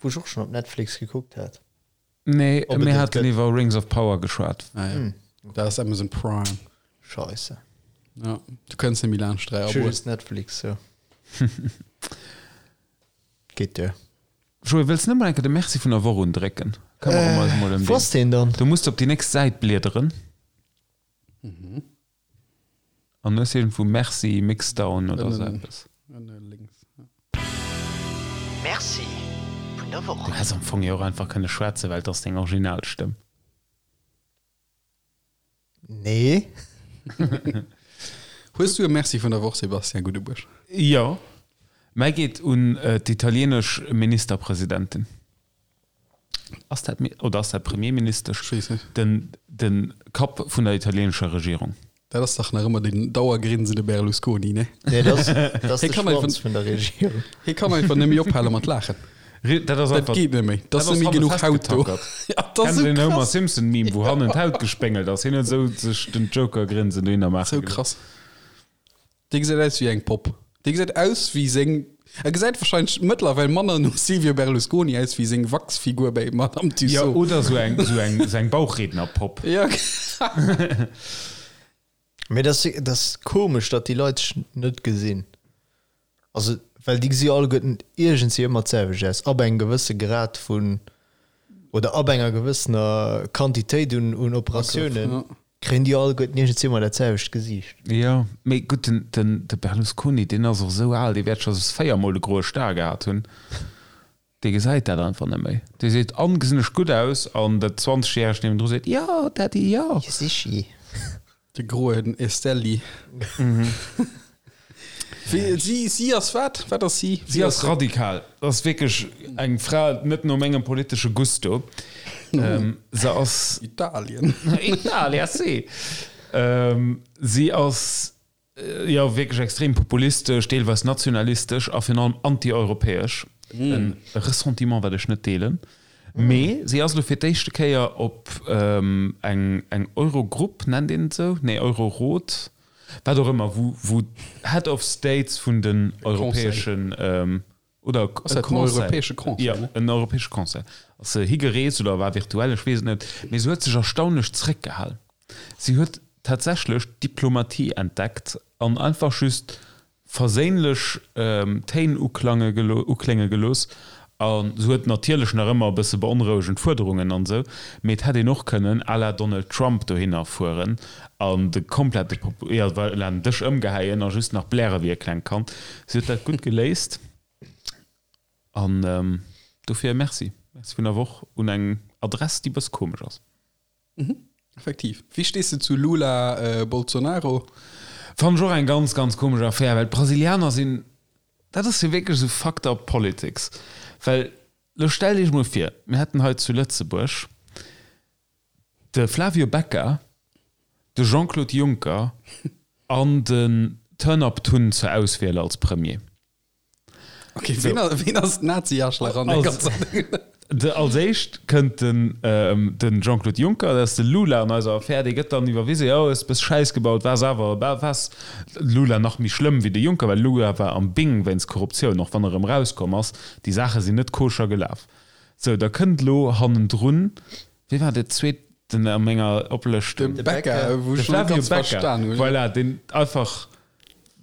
wou ech och schonn op Netflix gekuckt hat? Nee, Ob et mir et haten gëtt. iwwer Rings of Power geschwat. Ah, ja. Dat ass Amazon Prime. Scheisse. Ja, du kënns net méi laanscht 3 Ech hu Aboen. just Netflix, jo. Geet duer. Joé, wëlls net mol eng Kéier de Merci vun der Woch undrécken? Këmmere mer eis mol ëm Wou ass deen. deen dann? Du muss op déi nächst Säit bliederen. An hues iergendwou Merci Mixdown oder sou eppes. Ënne lénks, ja. Merci vun der Woch. Du häss am Fong jo och einfach kënne schwätzen, well et ass deng Originalstëmm. Nee. Hues du e Merci vun der Woch, Sébastien Guddebuerg? Jo, mäi geet un d'italienesch Ministerpresidentin. Ass dat, oder ass dat Premierministesch? Ech weess net. Den, den Kapp vun der italienescher Regierung. Dat ass dach nach ëmmer den dauergrinsende Berlusconi, ne? Nee, dat ass, dat ass Hie de kann einfach, Schwanz vun der Regierung. hie kann einfach net méi ophale mat laachen. Dat ass Dat einfach, geet net méi. Dat dat ass ass net méi hanne genuch Haut do. festgetackert. Ja, dat ass Kennt sou den Homer krass. Simpson Meme, wou hannen d'Haut gespéngelt ass? Hien huet esou sech den Joker-Grinsen dohinner maache Sou gelooss. krass. Dee gesäit aus wéi eng Popp. Dee gesäit aus wéi seng, e gesäit wahrscheinlech mëttlerweil manner no Silvio Berlusconi aus wéi seng Wachsfigur bei Madame Jo, Tussauds. oder sou eng, sou eng, sou eng Bauchrednerpopp. Ja. Mee dat ass, dat ass komesch, datt déi Leit sech net gesinn. Also, well déi gesi alleguerten iergendwéi ëmmer d'selwecht aus, ab engem gewësse Grad vun, oder ab enger gewëssener Quantitéit un, un Operatiounen. Ja. Kréien déi alleguerten iergendwéi ëmmer dat selwecht Gesiicht. Jo, mee gutt, den, den, de Berlusconi, deen ass och esou al, dee wäert scho 4 mol de groe Star gehat hunn. Dee gesäit dat einfach net méi. Dee seet, An, gesinn ech gutt aus? An dat 20 järegt niewendru seet, Jo, Daddy, jo. Jo, sichi. De groen Estelli. Wéi, si, si ass wat? Wat ass si? Si ass radikal. Ass wierklech eng Fra net no mengem politesche Gusto. Se ass. Italien. Italia, sì. Si ass Jo, wierklech extrem populistesch, deelweis nationalistesch a virun allem anti-europäesch. E Ressentiment, wat ech net deelen. Mee si ass elo fir d'éischte Kéier op eng eng Eurogrupp, nennt een et esou? Nee, Eurorot, wat och ëmmer, wou wou d'Head of States vun den europäeschen, oder Ass dat den europäesche Conseil, Jo, ne? en europäesche Conseil. Ass se higereest oder war virtuell, ech weess et net. Mee se huet sech erstaunlech zréckgehal. Si huet tatsächlech d'Diplomatie entdeckt an einfach just verséinlech Téin uklange uklénge gelooss. A se huet natierlech nach ëmmer e bësse beonrouegend Fuerderungen an esou, mee et hätt een och kënnen à la Donald Trump dohinner fueren an de komplette Popu, jo, voilà, den Dësch ëmgehäien a just nach bläre wéi e klengt Kand. Si huet dat gutt geléist an dofir e Merci. Merci vun der Woch un eng Adress, déi bëss komesch ass. Effektiv. Wéi stees de zu Lula, Bolsonaro? Fannen ech och eng ganz, ganz komesch Affär, well d'Brasilianer sinn, dat ass jo wierklech esou fucked up politics, well lo stellt iech mol vir, mir hätten hei zu Lëtzebuerg de Flavio Becca, de Jean-Claude Juncker an den Turnup Tun zur Auswiel als Premier. Okay, ween, so. ween ass Nazi-Arschlach an der ganzer Ding? De, als éischt kënnt den, ähm, den Jean-Claude Juncker, dat ass de Lula an eiser Affär, dee gëtt dann iwwerwise, jo, hues bëss Schäiss gebaut, waars awer, waars Lula nach méi schlëmm wéi de Juncker, well Lula war am Bing wéinst Korruptioun, och wann e rëm rauskomm ass, déi Saache sinn net koscher gelaf. Sou, da kënnt elo hannendrun, wee war dee zweeten a menger Oplëschtung? De Becca, wou De ech net Flavio ganz Becca, verstan hunn. voilà, deen einfach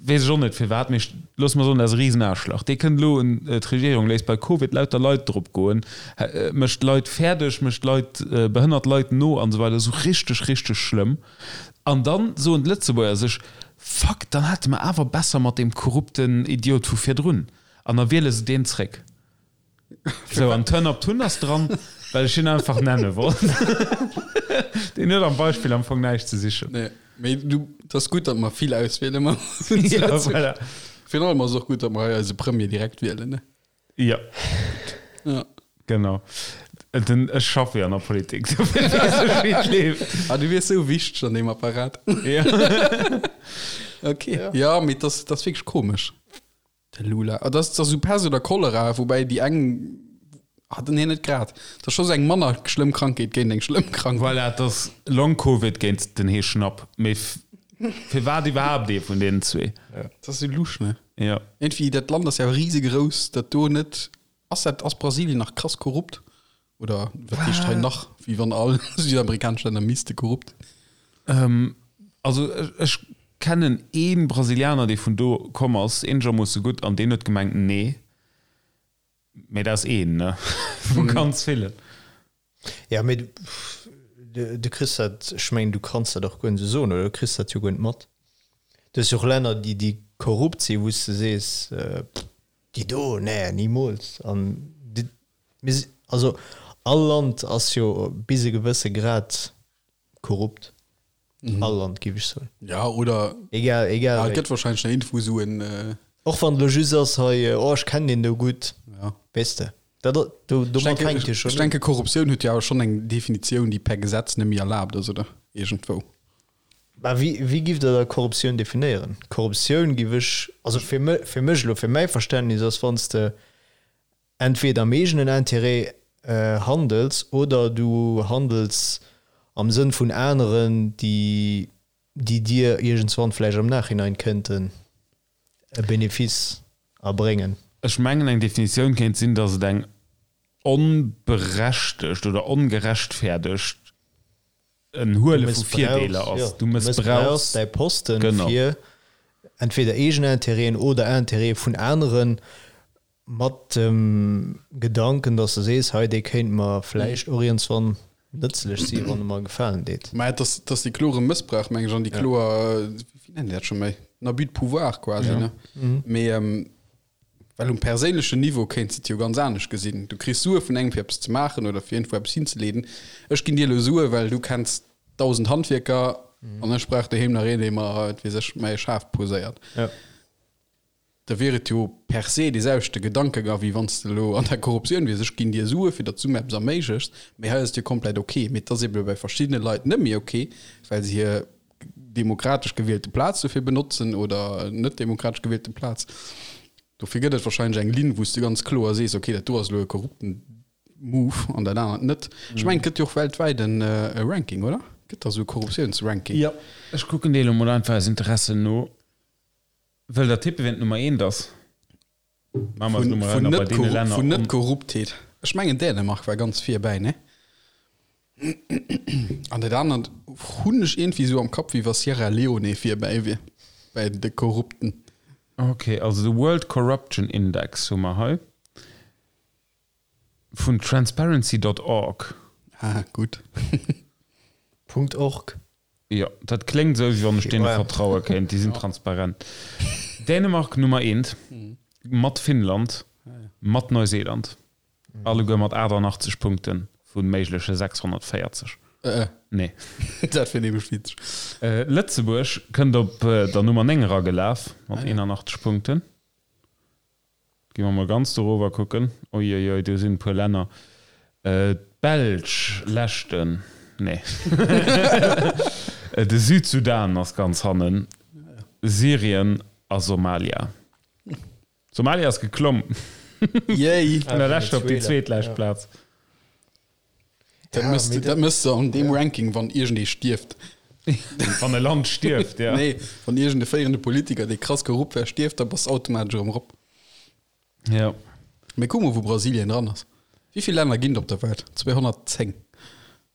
Weess ech och net firwat, mee loosse mer soen, dat ass e Risenaarschlach. Dee kënnt elo un d'Regierung, léisst bei Covid lauter Leit drop goen, mécht Leit fäerdeg, mécht Leit, behënnert Leit no an esou weider, esou richteg, richteg schlëmm. An dann soen d'Lëtzebuerger sech, Fuck, dann hate mer awer besser mat deem korrupten Idiot vu virdrun. An da wiele se deen zréck. Sou, an Turn Up Tun ass dran, well ech hien einfach nenne wollt. Deen huet am Beispill am Fong näischt ze sichen. Nee, mee du, et ass gutt, datt mer vill Auswiele man. Ja, voilà. Virun allem ass et och gutt, datt mer hei eise Premier direkt wielen, ne? Ja. Ja. Genau. Den, ech schaffe jo an der Politik, dofir weess ech, wéi et leeft. Ah, du wiers sou wichteg an deem Apparat. Ja. Okay. Ja, mee et ass, et ass wierklech komesch. De Lula. Ah, dat ass esou Pest oder Cholera, woubäi déi eng hat den hien net grad. Dat ass scho sou eng manner schlëmm Krankheet géint eng schlëmm Krankheet. Voilà, et ass Long-Covid géint den Heeschnapp. Mee firwat iwwerhaapt ee vun deenen zwee? Dat ass sou lusch, ne? Jo. Iergendwéi, dat Land ass ja risegrouss, dat do net. Ass dat, ass Brasilien nach krass korrupt? Oder wat heescht hei nach, wéi wann all südamerikanesch Länner misste korrupt? Also ech kennen ee Brasilianer, dee vun do komm ass, eenegermoosse gutt, an deen huet gemengt, nee. Mee dat ass een, ne, vu ganz villen. Ja, mee du kriss dat, ech mengen, du kanns dat och guer net esou soen, oder du kriss dat jo guer net mat. Du hues jo och Länner, déi, déi korrupt sinn, wou s de sees, déi do, nee, nimools. An déi, mir si, also all Land ass jo bis e gewësse Grad korrupt. All Land, géif ech soen. Ja, oder Egal, egal ja, et wéi. gëtt wahrscheinlech nach iergendwou esou en. Och wann et elo just ass, hei, oh ech kennen deen do gutt, Ja. weess de. Dat, do, Ech domat denke, fänkt jo ech schonn un. denke Korruptioun huet jo awer schonn eng Definitioun, déi per Gesetz net méi erlaabt ass, oder? Iergendwou. Mä wéi, wéi giff Der da Korruptioun definéieren? Korruptioun giff ech, also fir mech, fir mech elo, fir mäi Verständnis ass, wann s de entweder am eegenen Intérêt handels oder du handels am Sënn vun aneren, déi, déi dir iergendswann vläicht am Nachhinein kënnten e Benefice erbréngen. Ech mengen eng Definitioun kéint sinn, datt et eng onberechtegt oder ongerechtfäerdegt en Huele vu Virdeeler ass. Du mëssbrauchs däi Posten fir entweder eegen Intérêten oder Intérêtë vun aneren, mat dem Gedanken, datt s de sees, hei dee kéint mer vläicht och iergendswann nëtzlech si wann e mer e Gefalen deet. Mä et ass, et ass dee klore Mëssbrauch, meng ech, an déi kloer, wéi nennen déi dat scho méi, en Abus de pouvoir quasi, ne? Mee well um perséinlechen Niveau kéints de et jo ganz anescht gesinn. Du kriss Sue vun engem fir eppes ze maachen oder fir iergendwou eppes hinzeleeden. Ech ginn dir elo Sue well du kenns 1.000 Handwierker an ech brauch doheem nach een, dee mer, wat weess ech, mäi Schaf poséiert. Da wier et jo per se dee selwechte Gedankegang, wéi wann s de elo an der Korruptioun wiers, ech ginn dir Sue fir datt s du mir eppes erméiglechs, mee hei ass et jo komplett ok. Mee et ass ebe bei verschiddene Leit net méi ok, well se hir demokratesch gewielte Plaz dofir benotzen oder net demokratesch gewielte Plaz. Dofir gëtt et wahrscheinlech eng Linn, wou s de ganz kloer sees, ok, dat do ass elo e korrupten Move an dat anert net. Ech mengen, et gëtt jo och weltwäit e Ranking, oder? Gëtt da sou e Korruptiounsranking? Jo, ech kucken dee elo mol einfach aus Interesse no. Wëllt der tippen, wien d'Nummer eent ass? Maache mer Vun, vun net korrup, vun net Korruptheet. Ech mengen Dänemark war ganz virbäi, ne? An dat anert hunn ech iergendwéi esou am Kapp, wéi wa Sierra Leone virbäi wier bäi de Korrupten. Ok, also de World Corruption Index hu mer hei vun transparency dot org. Ah, gutt. Punkt org. Jo, dat kléngt esou, wéi wann ech deene vertraue kéint. Déi sinn transparent. Dänemark Nummer eent, mat Finnland, mat Neuseeland. Alleguer mat 88 Punkte vu méigleche 640. Nee. Dat wier nämlech witzeg. Lëtzebuerg kënnt op der Nummer 9 eragelaf mat 81 Punkten. Gi mer mol ganz dorower kucken. Uiuiui, do sinn e puer Länner. D'Belsch, leschten, nee. De Südsudan ass ganz hannen. Syrien a Somalia. Somalia ass geklomm. Yay! Vun der leschter op déi zweetlescht Plaz. Dat mëss de, dat mëss de an deem Ranking, wann iergendee stierft. Wann e Land stierft, ja. Nee, wann iergende féierende Politiker, dee krass korrupt war, stierft, da bass de automatesch erëm erop. Ja. Mee kuck mol, wou Brasilien dran ass. Wéi vill Länner ginn et op der Welt? 210.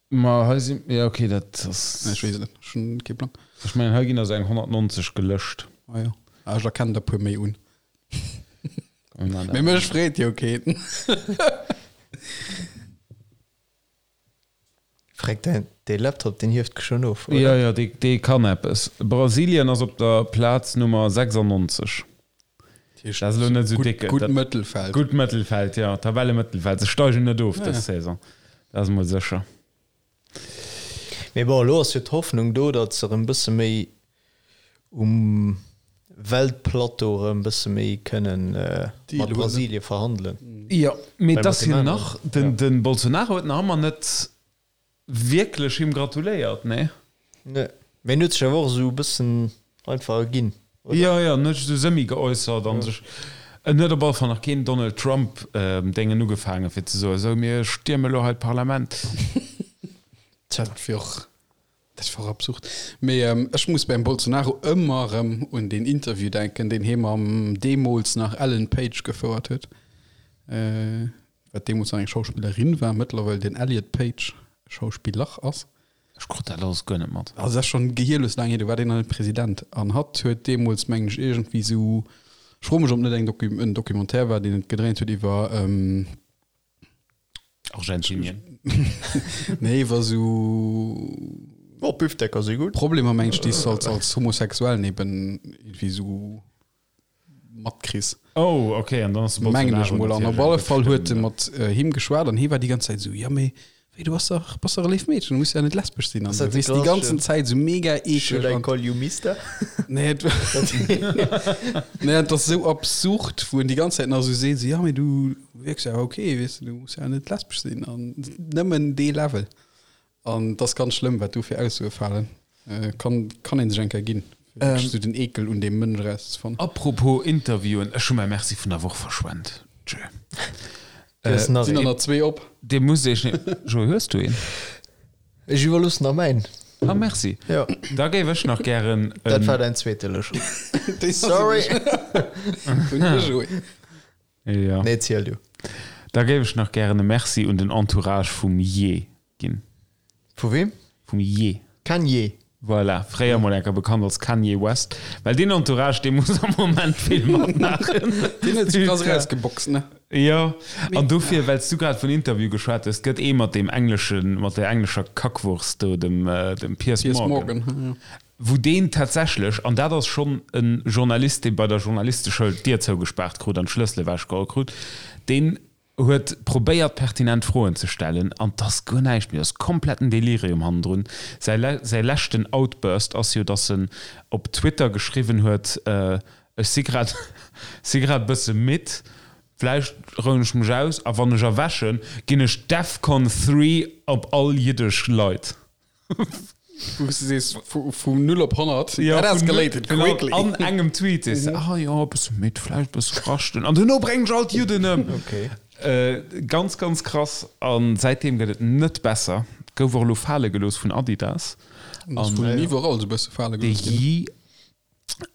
Ma hei sinn, ja okay, dat ass. Ech weess et net, ech hunn kee Plang. Ech mengen, hei ginn der sou eng 190 gelëscht. Ah jo, ah, ech erkennen der puer méi un. Mee mech freet jo keen. Freck, däin, dee Laptop, deen hieft schon of, oder? Jo, jo, dee, dee kann eppes. Brasilien ass op der Plaz Nummer 96. Dat ass elo net esou déck. Gutt Mëttelfeld. Gutt Mëttelfeld, jo. Tabellemëttelfeld. Se steigen net of dës Saison. Dat ass emol sécher. Mee bon, elo ass jo d'Hoffnung do, datt se erëm bësse méi um Weltplateau erëm bësse méi kënnen mat Brasilie verhandelen. Jo, mee et ass jo nach, de Bolsonaro huet nach ëmmer net wierklech him gratuléiert, nee? Nee, mee en huet sech awer och esou e bëssen einfach erginn, oder? Jo, jo, en huet sech esou semi geäussert an sech, en huet op alle Fall nach keen Donald Trump Déngen ugefaangen, fir ze soen, esou mir stierme elo hei d'Parlament. Tja, dat wier och, dat wier och absurd. Mee ech muss beim Bolsonaro ëmmer erëm un deen Interview denken, deen hie mam deemools nach Ellen Page gefouert huet. Wat deemools nach eng Schauspillerin war, mëttlerweil den Elliot Page Schauspiller ass. Ech krut dat alles guer net mat. Also dat ass schonn gehierlos laang hier, do war deen nach net President. An hatt huet deemools, mengen ech, iergendwéi esou, ech froe mech, ob net eng Docu, en Documentaire war, deen et gedréint huet iwwer, Argentinien. nee, iwwer esou. Oh, Büfdecker si gutt. Problemer, mengen ech, déi s de als, als Homosexuellen eben iergendwéi esou matkriss. Oh, ok, an dann ass de Mengen ech Bolsonaro mol. An op natierlech alle eng Fall huet e Bestëmmung. mat him geschwat an hie war déi ganz Zäit esou, jo mee. Wéi, du bass dach, bass dach e léift Meedchen, du muss ja net lesbesch sinn. An du weess déi ganzen Zäit esou mega eeklech. Should I call you Mister? Nee, et nee, et ass esou absurd, wou en déi ganz Zäit nach esou seet, esou, ja, mee du wierks ja ok, weess de, du muss ja net lesbesch sinn. An nëmmen dee Level. An et ass ganz schlëmm, wat do fir Aussoe falen. Kann, kann ee sech eng Kéier ginn, fir wierklech esou den Eekel un deem Mënsch erauszefannen. Apropos Interviewen, ech hu mäi Merci vun der Woch verschwent. Tschö. Äh, nach Sinn der nach zwee op? Dir musst iech ne Joé, hues du een? Ech iwwerloossen der mäin. Ah, merci. Ja. Da géif ech nach gären Dat war däin zweete lo schon. Sorry. Vun de Joé. Ja. Nee, ziel du. Da géif ech nach gären e Merci un den Entourage vum Ye ginn. Vu wem? Vum Ye. Kanye. Voilà, fréier mol enker bekannt als Kanye West. Well deen Entourage, dee muss am Moment vill matmaachen. Deen huet sech krass erausgeboxt, ne? Jo, an dofir, well s du grad vun Interview geschwat hues, et gëtt ee mat deem engleschen, mat där englescher Kackwurst do, dem, dem Piers Piers Morgan, Morgan, jo. wou deen tatsächlech, an dat ass schonn e Journalist, dee bei der Journalisteschoul d'Dier zougespaart krut an d'Schlëssel ewechgeholl krut, deen huet probéiert pertinent Froen ze stellen an 't ass guer näischt méi, ass kompletten Delirium hannendrun. Säi säi leschten Outburst ass jo, dass en op Twitter geschriwwen huet, ech si grad si grad bësse midd, vläicht rouen ech mech aus a wann ech erwächen, ginn ech Defcon 3 op all jiddesch Leit. Wou s du sees, vu 0 op 100, that escalated quickly. An engem Tweet sees de, ah jo, e bësse midd, vläicht e bësse raschten an duerno bréngen ech all d'Judden ëm. Ganz, ganz krass. A säitdeem gëtt et net besser. Gouf och elo fale gelooss vun Adidas. Ass vun iwwerall esou e bësse fale gelooss ginn.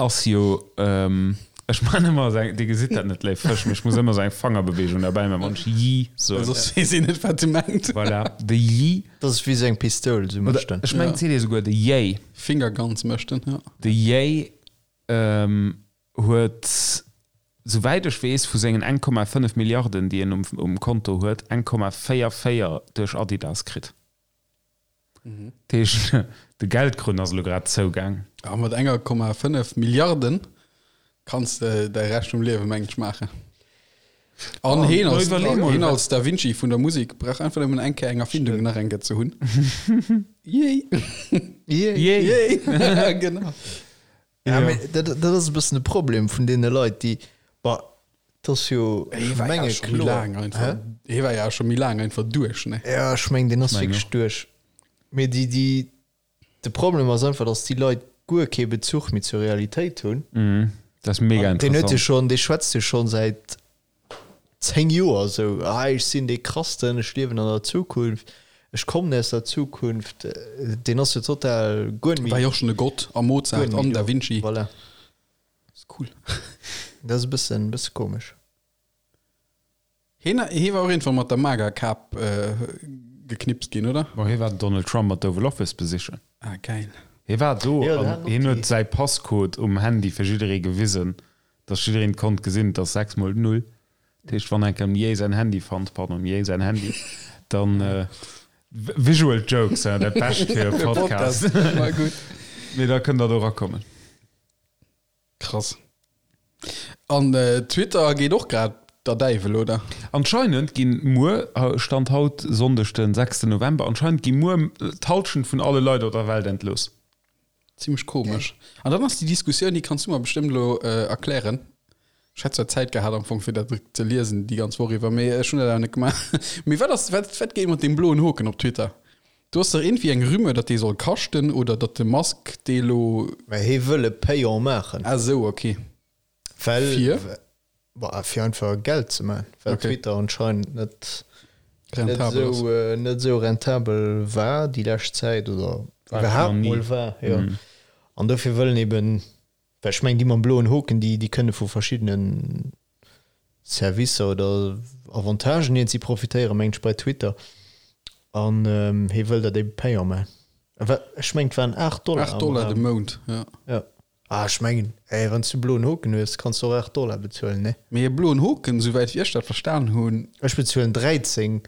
Ass jo, ech man ëmmer esou eng, Dir gesitt dat net, léif Fësch, mee ech muss ëmmer esou eng Fangerbeweegung derbäi man, wann ech Yi soen. Soss weess een net, wat e mengt. Voilà, de Yi. Dat ass wéi esou eng Pistoul, esou mécht en. Ech mengen, et seet ee souguer de Yay. Fingerguns mécht en, jo. De Yay huet, souwäit ech weess, vu sengen 1,5 Milliarden, déi en um Konto huet, 1,44 duerch Adidas kritt. Dat heescht, de Geldkrunn ass elo grad zougaang. A mat enger Komma 5 Milliarden kanns de däi Rescht vum Liewe mengt ech maachen. An heen als, heen als Da Vinci vun der Musek brauch einfach nëmmen eng Kéier eng Erfindung nach eng Kéier ze hunn. Yay! Yay! Yay! Genau. Ja, mee dat, dat ass e bëssen de Problem vun deene Leit, déi, bah, dat ass jo, Hie war ja menge scho méi kloer. laang einfach, Hä? hie war ja scho méi laang einfach duerch, ne? Ja, ech meng, deen ass Meng wierklech och. duerch. Mee déi, déi, de Problem ass einfach, datt déi Leit guer kee Bezuch méi zur Realitéit hunn. Mhm. Dat ass mega An deen huet jo interessant. schonn, dee schwätzt jo schonn säit 10 Joer esou, ah ech sinn dee Krassten, ech liewen an der Zukunft, ech kommen aus der Zukunft, deen ass jo total guer net méi. War jo och schonn e Gott a Mozart an Da Vinci. Voilà. Ass cool. Dat ass e bëssen, bësse komesch. Hien, hie war och iergendwann mat der MAGA-Kap geknipst ginn, oder? Bon, hie war den Donald Trump mat Oval Office besichen. Ah, geil. Hie war do Jo, an dat hat hien och huet déi. säi Passcode um Handy fir jidderee gewisen. Dass jiddereen konnt gesinn, et ass 6 mol 0. Dat heescht, wann enk dem Jay säin Handy fannt, pardon, dem Jay säin Handy, dann, visual jokes, hein, dat Bescht fir e Podcast. Mee da kënnt der do erakommen. Krass. An Twitter geet och grad der Däiwel, oder? Anscheinend ginn muer, Stand haut, Sonndeg den 6 November, anscheinend gi muer d'Hallschent vun alle Leit op der Welt entlooss. Zimmlech komesch. An dann ass déi Diskussioun, déi kanns du mer bestëmmt elo erklären. Ech hätt zwar Zäit gehat am Fong fir dat ze liesen déi ganz Woch iwwer, mee ech hunn dat awer net gemaach. Mee wat ass, wat, wat geet mat deem bloen Hoken op Twitter? Do ass dach iergendwéi eng Rumeur, datt dee soll kaschten oder datt de Musk dee elo. Mä hie wëll e Payant maachen. Ah sou, ok. Well, Fir? Bah, fir einfach Geld ze man, well Okay. Twitter anscheinend net, net Rentabel ass. esou, äh, net esou rentabel war déi lescht Zäit oder War iwwerhaapt nach nie. mol war, jo. An dofir wëllen eben, well ech mengen déi mam bloen Hoken, déi, déi kënne vu verschiddenen Servicer oder Avantagen iergendwéi profitéieren, mengen ech, bei Twitter. An ähm, hie wëll dat ebe payant man. Wa, ech mengen et waren 8 Dollar 8 am Dollar de Raum. Mount, ja. Ja. Ah, ech mengen, ey, wann s du bloen Hoken hues, kanns du och 8 Dollar bezuelen, ne? Mee e bloen Hoken, souwäit wéi ech dat verstan hunn. Ech bezuelen 13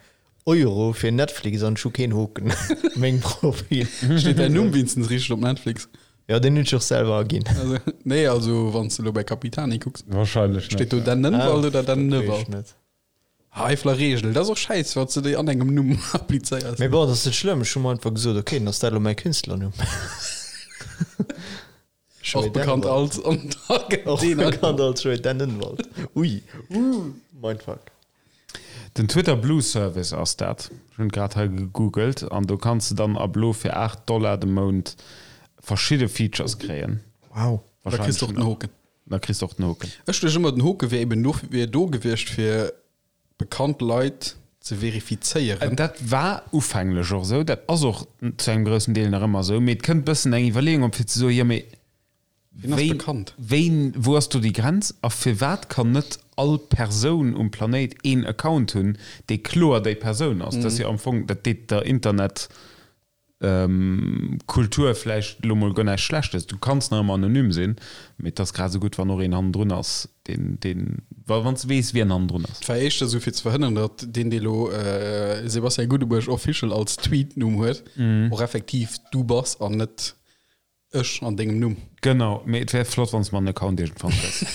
Euro fir Netflix an ech hu keen Hoken op mengem Profil. Steet däin Numm wéinstens richteg op Netflix? Jo, deen hunn ech och selwer aginn. Also, nee, also wann s de elo bei Capitani kucks. Wahrscheinlech net. Steet do Dan Nënnwald oder Dan Dat weess Nëwald? ech net. Eifeler Reegel, dat ass och schäiss, wann s de déi an engem Numm applizéiers. Mee bon, dat ass net schlëmm, ech hu mer einfach gesot, ok, dann ass dat elo mäi Künstlernumm. Och bekannt als Och bekannt als Joé Dennenwald. Ui, mindfuck. Den Twitter Blue Service ass dat. Ech hunn et grad hei gegoogelt an do kanns de dann ab elo fir 8 Dollar de Mount verschidde Features kréien. Wow. Da kriss de och den Hoken. Da kriss de och den Hoken. Ech duecht ëmmer den Hoke wier eben do wier do gewiescht fir bekannt Leit ze verifizéieren. Dat war ufänglech och esou, dat ass och zu engem groussen Deel nach ëmmer esou, mee et kënnt bëssen eng Iwwerleeung op fir ze soen, jo mee Wien ass bekannt? Wéin, wou ass do déi Grenz a firwat kann net all Persoun um Planéit een Account hunn, dee kloer déi Persoun ass? Dat ass jo am Fong, dat deet der Internet Kultur vläicht elo mol guer näischt Schlechtes. Du kanns nach ëmmer anonym sinn, mee et ass grad esou gutt, wann och een hannendrun ass, deen, deen, wa wann s de weess, wien hannendrun ass. Et war éischter esou fir ze verhënneren, datt deen, dee elo Sebastian Gudebuerg Official als Tweet-Numm huet, och effektiv du bass an net Ech an dengem Numm. Genau, mee et wär flott wanns mer en Account iergendwann kriss.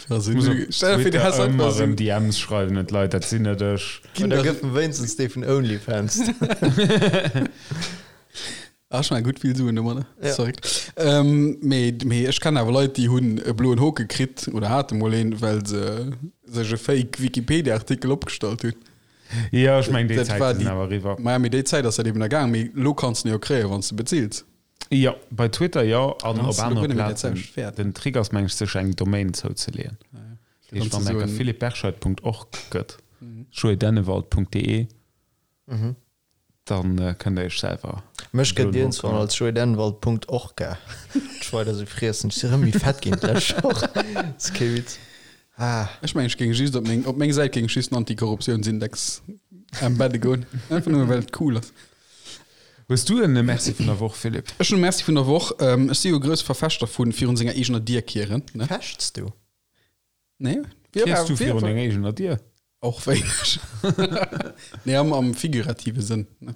Also, Muss op stell dir vir, du Twitter häss einfach ëmmer esou erëm DMs schreiwen un d'Leit, dat sinn net ech. Ginn da gëff em wéinstens dee vun OnlyFans. Ah, ech man gutt vill Suen domadder. Ja. Verréckt. Ähm, mee, mee ech kennen awer Leit, déi hunn e bloen Hoke kritt oder hate mol een, well se sech e Fake Wikipedia-Artikel opgestallt hunn. Jo, ech mengen déi Dat war Zäite sinn déi- awer eriwwer. Maja, mee déi Zäit ass dat eben ergaang. Mee lo kanns de en jo kréien, wann s de bezills. Jo, bei Twitter jo, an Dann op hast du anere guer net méi dat Plazen. selwecht Wäert. Den Trick ass meng ech sech eng Domain zouzeleeën. Dat heescht, Dann wann ze enker soen- philippeberscheid.org gëtt, joeydennewald.de, dann kënnt der iech selwer Mech gëtt bloen iergendswann Hoken. als joeydennewald.orca. Ech weider sou friessen. Ech si rëm méi fett ginn d'lescht Woch. Ass kee Witz. Ah. Ech mengen, ech géing just op meng, op meng Säit géing ech just den Antikorruptiounsindex embedde goen. Einfach nëmme well et cool ass. Hues du en Merci vun der Woch, Philippe? Ech hunn e Merci vun der Woch. Ech si jo e grousse Verfechter vu virun senger eegener Dier kieren, ne? Fechts du? Nee. Kiers du virun denger eegener Dier? Och wéineg. Nee, am, am figurative Sënn, ne?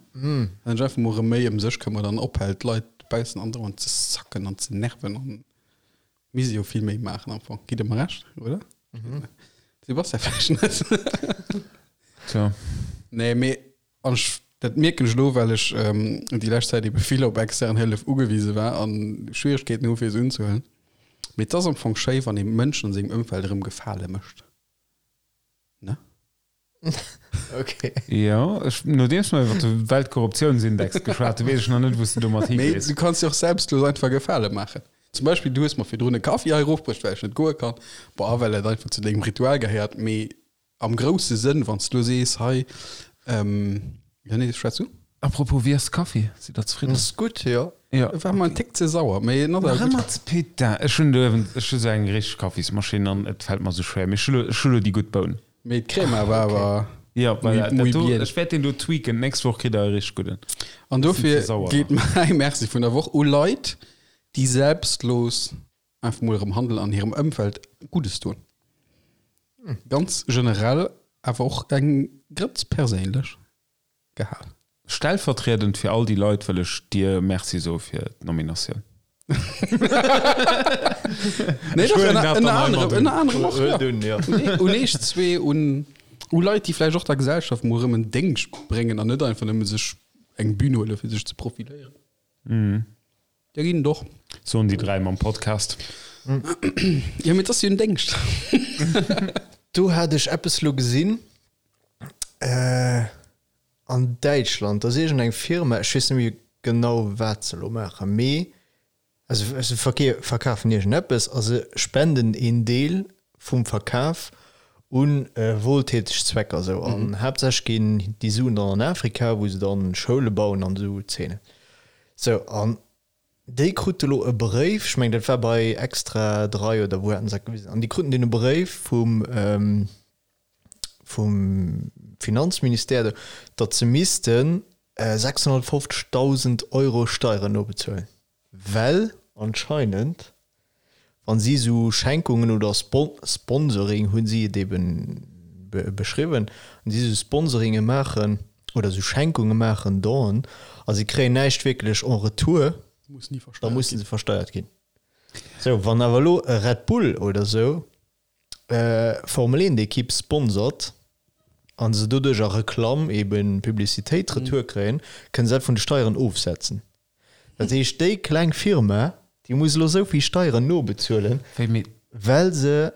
Wann ech einfach mol erëm méi ëm sech këmmert an ophält, d'Leit dobaussen andauernd ze sacken an ze nerven an Misst ee jo vill méi maachen am Fong. Gitt der mer Recht, oder? Mhm. Sebastian vläicht net. Tja. Nee, mee an ech, dat mierken ech elo, well ech ähm, déi lescht Zäit ebe vill op extern Hëllef ugewise war an Schwieregkeeten hu fir se unzehuelen. Mee et ass am Fong schéi, wann ee Mënschen an sengem Ëmfeld erëm Gefale mécht. Ne? Okay. Jo, ech, nodeems mer iwwer de Weltkorruptiounsindex geschwat hunn, weess ech nach net, wou s de domat Mee higees. du kanns jo och selbstlos einfach Gefale maachen. Zum Beispill, du hues mer virdrun e Kaffi hei erofbruecht, well ech net goe kann. Bon, a well et einfach zu dengem Ritual gehéiert. Mee am grousse Sënn, wann s du elo sees, hei, ähm, jo, nee, schwätz du. Apropos, wéi ass de Kaffi? Sidd der zefridden? Ass gutt, jo. Jo. E war mer en Tick ze sauer, mee en ass awer Nach gutt. ëmmer ze, putain, ech hunn do uewen, ech hu sou eng richteg Kaffismaschinn an et fält mer sou schwéier. Mee ech hu lo, ech hu lo déi gutt Boun. Mee d'Crema war awer Ja, voilà, muy dat do, bien. ech wäert deen do tweaken. D'nächst Woch kritt der e richteg gudden. An dofir ze sauer geet mäi Merci vun der Woch u Leit, déi selbstlos einfach mol erëm handelen an hirem Ëmfeld Guddes doen. Ganz generell, awer och eng Grëtz perséinlech gehal. Stellvertriedend fir all déi Leit wëll ech dir Merci soe fir d'Nominatioun. Nee, Ech doch, huelen ënner, dat ënner dann hei anerem, mat un. ënner anerem och, ja. Huel un, ja. Nee, un eech zwee, un, u Leit, déi vläicht och der Gesellschaft mol erëm en Déngscht bréngen an net einfach nëmme sech eng Bühn huele fir sech ze profiléieren. Der ginn et och. Soen déi 3 mam Podcast. Jo, mee et ass jo en Déngscht. Do hat ech eppes lo gesinn, äh, An Däitschland, do ass iergend eng Firma, ech weess net méi genau wat se elo maachen, mee also se verkafen iergend eppes a se spenden een Deel vum Verkaf u wohltäteg Zwecker esou. An haaptsächlech ginn déi Suen dann an Afrika, wou se dann Schoule bauen an esou Zeenen. Sou, an déi krute elo e Bréif, ech mengen dat war bei Extra 3 oder wou haten se dat gewisen, an déi kruten deen e Bréif vum, vum Finanzministère, datt se misste 650.000 Euro Steieren nobezuelen, well anscheinend, wa si esou Schenkungen oder Sponsoring, hu si et eben beschriwwen, wa si esou Sponsoringe maachen oder esou Schenkunge maachen, Donen, a si kréien näischt wierklech en retour, da musse se versteiert ginn. Sou, wann awer elo e Red Bull oder esou. Formel 1 Ekipp sponsort an se doduerch a Reklamm eben Publicitéit retour kréien, kënne se dat vun de Steieren ofsetzen. Dat heescht déi kleng Firma, déi muss elo esou vill Steieren nobezuelen, well se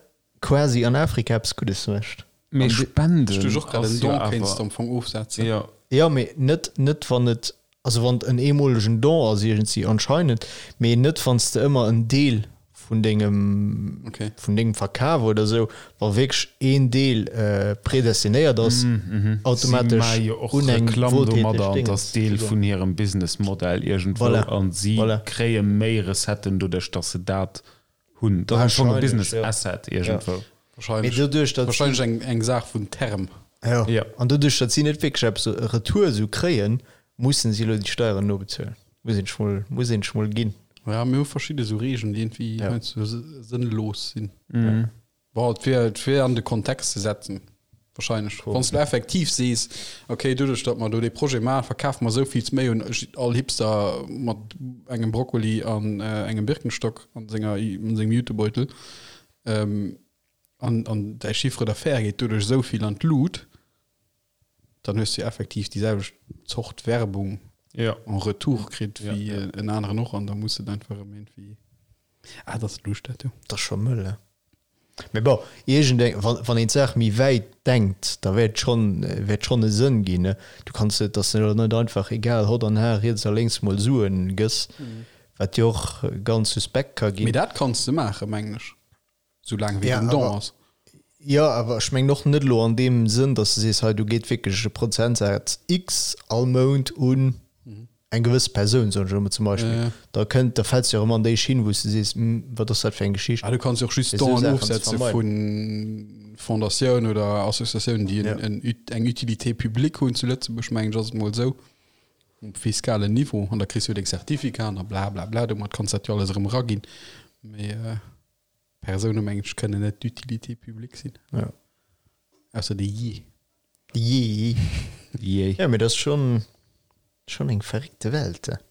quasi an Afrika eppes Guddes mécht. Mee Spenden Ech duecht och grad, en Don kéints de am Fong ofsetzen. Jo. Jo, mee net, net wann et, also wann et en eemolegen Don ass iergendwéi anscheinend, mee net wann s de ëmmer en Deel vun dengem, vun dengem Verkaf oder esou, wa wierklech een Deel predestinéiert ass, automatesch Si maache jo och un eng Reklamm wohltäteg domadder an et ass Deel vun hirem Businessmodell iergendwou Voilà, an si voilà. kréie méi Recetten doduerch, datt se dat hunn. Dat ass am Fong e Wahrscheinlech, Business jo. Asset Ja. iergendwou. Mee Wahrscheinlech, doduerch, datt si. wahrscheinlech eng, eng Saach vun Term. Jo. Ja. An doduerch, datt si net wierklech eppes retour esou kréien, mussen si elo déi Steieren nobezuelen. Muss een sech mol, muss een sech mol ginn. Ja, mir hu verschidde sou Regeln, déi iergendwéi Ja. heiansdo sënnlos sinn. Bon, et wier, et wier an de Kontext ze setzen, wahrscheinlech. Wann s du effektiv sees, okay, doduerch, datt mer do dee Projet maachen, verkafe mer esou vill méi un all Hipster mat engem Brokkoli an engem Birkenstock an senger, an sengem Jutebeutel, an, an däi Chiffre d'affaires geet doduerch esou vill an d'Lut, dann hues du jo effektiv déi selwecht Zort Werbung Ja. en retour kritt Ja, wéi ja. en aneren och an da muss et einfach erëm iergendwéi, ah, dat ass luucht dat jo. Dat ass scho mëll, ne? Mee bon, iergendeng, wann, wann een d'Saach méi wäit denkt, da wäert schonn, wäert schonn e Sënn ginn, ne? Du kanns net, dass de elo net einfach egal hott an har riets a lénks mol Suen gëss, wat jo och ganz suspekt ka Mee ginn. dat kanns de maachen, mengen ech, soulaang wéi Ja, den Don awer, ass. jo, awer ech mengen och net elo an deem Sënn, dass de sees, hei do geet wierklech e Prozentsaz X all Mount un eng gewëss Persoun, soen ech elo mol zum Beispill, Ja, ja. da kënnt, da fäls de jo erëm an déi Schinn, wou s de sees, Hm, wat ass dat fir eng Geschicht? Ah, du kanns jo och just Fir esou Donen Saachen ze ofsetze vermeiden. vu Fondatioun oder Associatiounen, déi en, Ja. en, eng Utilité publique hunn zu Lëtzebuerg, mengen ech, ass et mol esou, um fiskalen Niveau. An da kriss du jo deng Certificaten a bla bla bla, domat kanns dat jo alles erëm eraginn. Mee Persoune, mengen ech, kënnen net d'Utilité publique sinn. Ja. Ausser de Jee. Jee. Jee. Ja, mee dat ass schonn, schonn eng verréckte Welt. Dat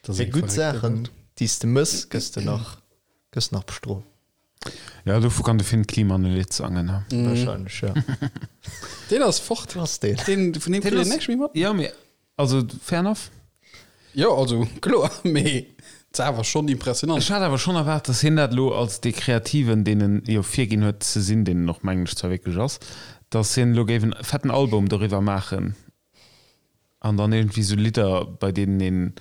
ass Fir eng gutt verréckte Saachen, Welt. déi s de mëss, gëss de nach, gëss nach bestrooft. Ja, dovu kann de Finn Kliman e Lidd sangen, ne? Wahrscheinlech, ja. Deen ass fort. Wo ass deen? Deen, vun deem kritt een näischt méi mat. Ja, mee also fair enough. Jo, also kloer, mee et ass awer schonn impressionant. Ech hat awer schonn erwaart, dass hien dat elo als dee Kreativen, deen en jo virginn huet ze sinn, deen en och mengen ech zwar wierklech ass, dass hien elo géif en fetten Album doriwwer maachen an dann iergendwéi sou Lidder, bei deenen een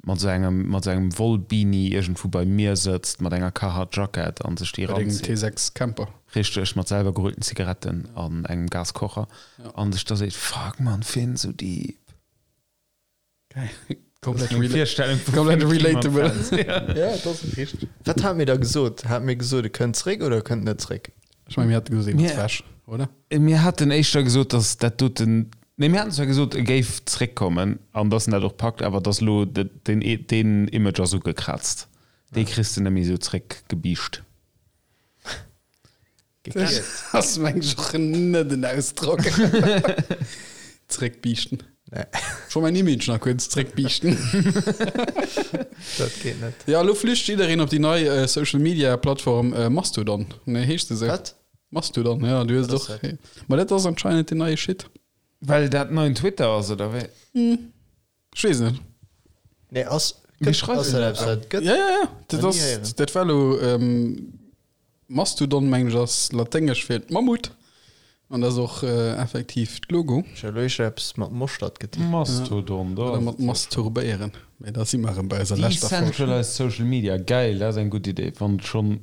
mat sou engem mat sou engem Wollbeanie iergendwou beim Mier sëtzt mat enger Carhartt Jackett an sech déi Bei dengem eranzitt. T6 Camper. Richteg, mat selwer gerullten Zigaretten an engem Gaskocher an sech da seet, Fuck man, Finn, sou deep. Komplett, Meng rela Virstellung vu komplett Finn Kliman relatable. Fans. Ja. Ja, dat ass richteg. Wat hat mir da gesot? Hat mir gesot, e kënnt zréck oder e kënnt net zréck? Ech mengen, mir hate gesot, een ass Mir- wech, oder? Mir haten éischter gesot, datt dat doten, nee, mir haten zwar gesot, e géif zréckkommen an datt en dat och packt, awer datt elo den, deen Image ass ugekraazt. Dee kriss de net méi esou zréckgebiischt. Gekiert. Ass meng ech och net en Ausdrock. Zréckbiischten. Nee. Scho mäin Image nach kuerz zréckbiischten. Dat geet net. Ja, elo flücht jiddereen op déi nei Social Media Plattform Mastodon. Nee, heescht se esou? Wat? Mastodon, ja, du hues Wat ass och. dat? Ma dat ass anscheinend den neie Shit. Well dat neien Twitter ass, oder wéi? Ech weess net. Nee, ass, Wie gëtt, schreift ass denn dat dat eppes, wat gëtt? Ja, ja, ja. Dat Noch nie ass, héieren. dat war elo Mastodon, mengen ech, ass laténgesch fir Mammut. An dat ass och effektiv d'Logo. Ech hu elo éischter eppes mat Moschtert getippt. Mastodon, do Oder ass mat et jo. masturbéieren. Mee da si mer erëm bei eiser leschter Folg. Decentralized Social Media, geil, dat ass eng gutt Idee, wann et schonn,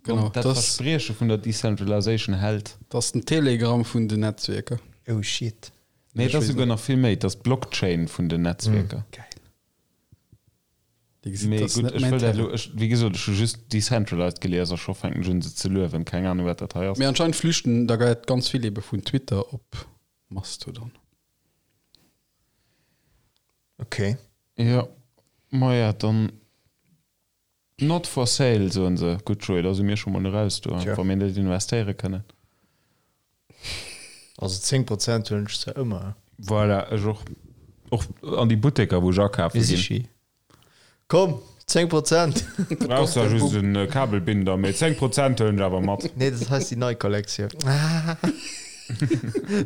Genau, wann dat das- Versprieche vun der Decentralization hält. Dat ass den Telegram vun den Netzwierker. Oh shit. Nee, Ech et ass weess souguer nach vill méi, et ass d'Blockchain vun den Netzwierker. Geil. Dir gesitt, Mee dat ass gutt, net ech mäin wëll dat Terrain. elo, ech, wéi gesot, ech hu just decentralized gelies a scho fänken ech un se ze luewen. Keng Ahnung, wat dat hei ass. Mee anscheinend flüchten da geit ganz vill ebe vun Twitter op Mastodon. Okay. Jo, maja, dann not for sale, soen se. Gutt, Joé, da si mir scho mol eraus do, Tja. wa mir net investéiere kënnen. Also 10 Prozent huelen ech zwar ëmmer. Voilà, ech och. Och an déi Butteker, wou ech akafe Mir ginn. si Komm! 10 Prozent. Brauchs zwar just en Kabelbinder, mee 10 Prozent huelen ech awer mat. Nee, dat hei ass déi nei Kollektioun.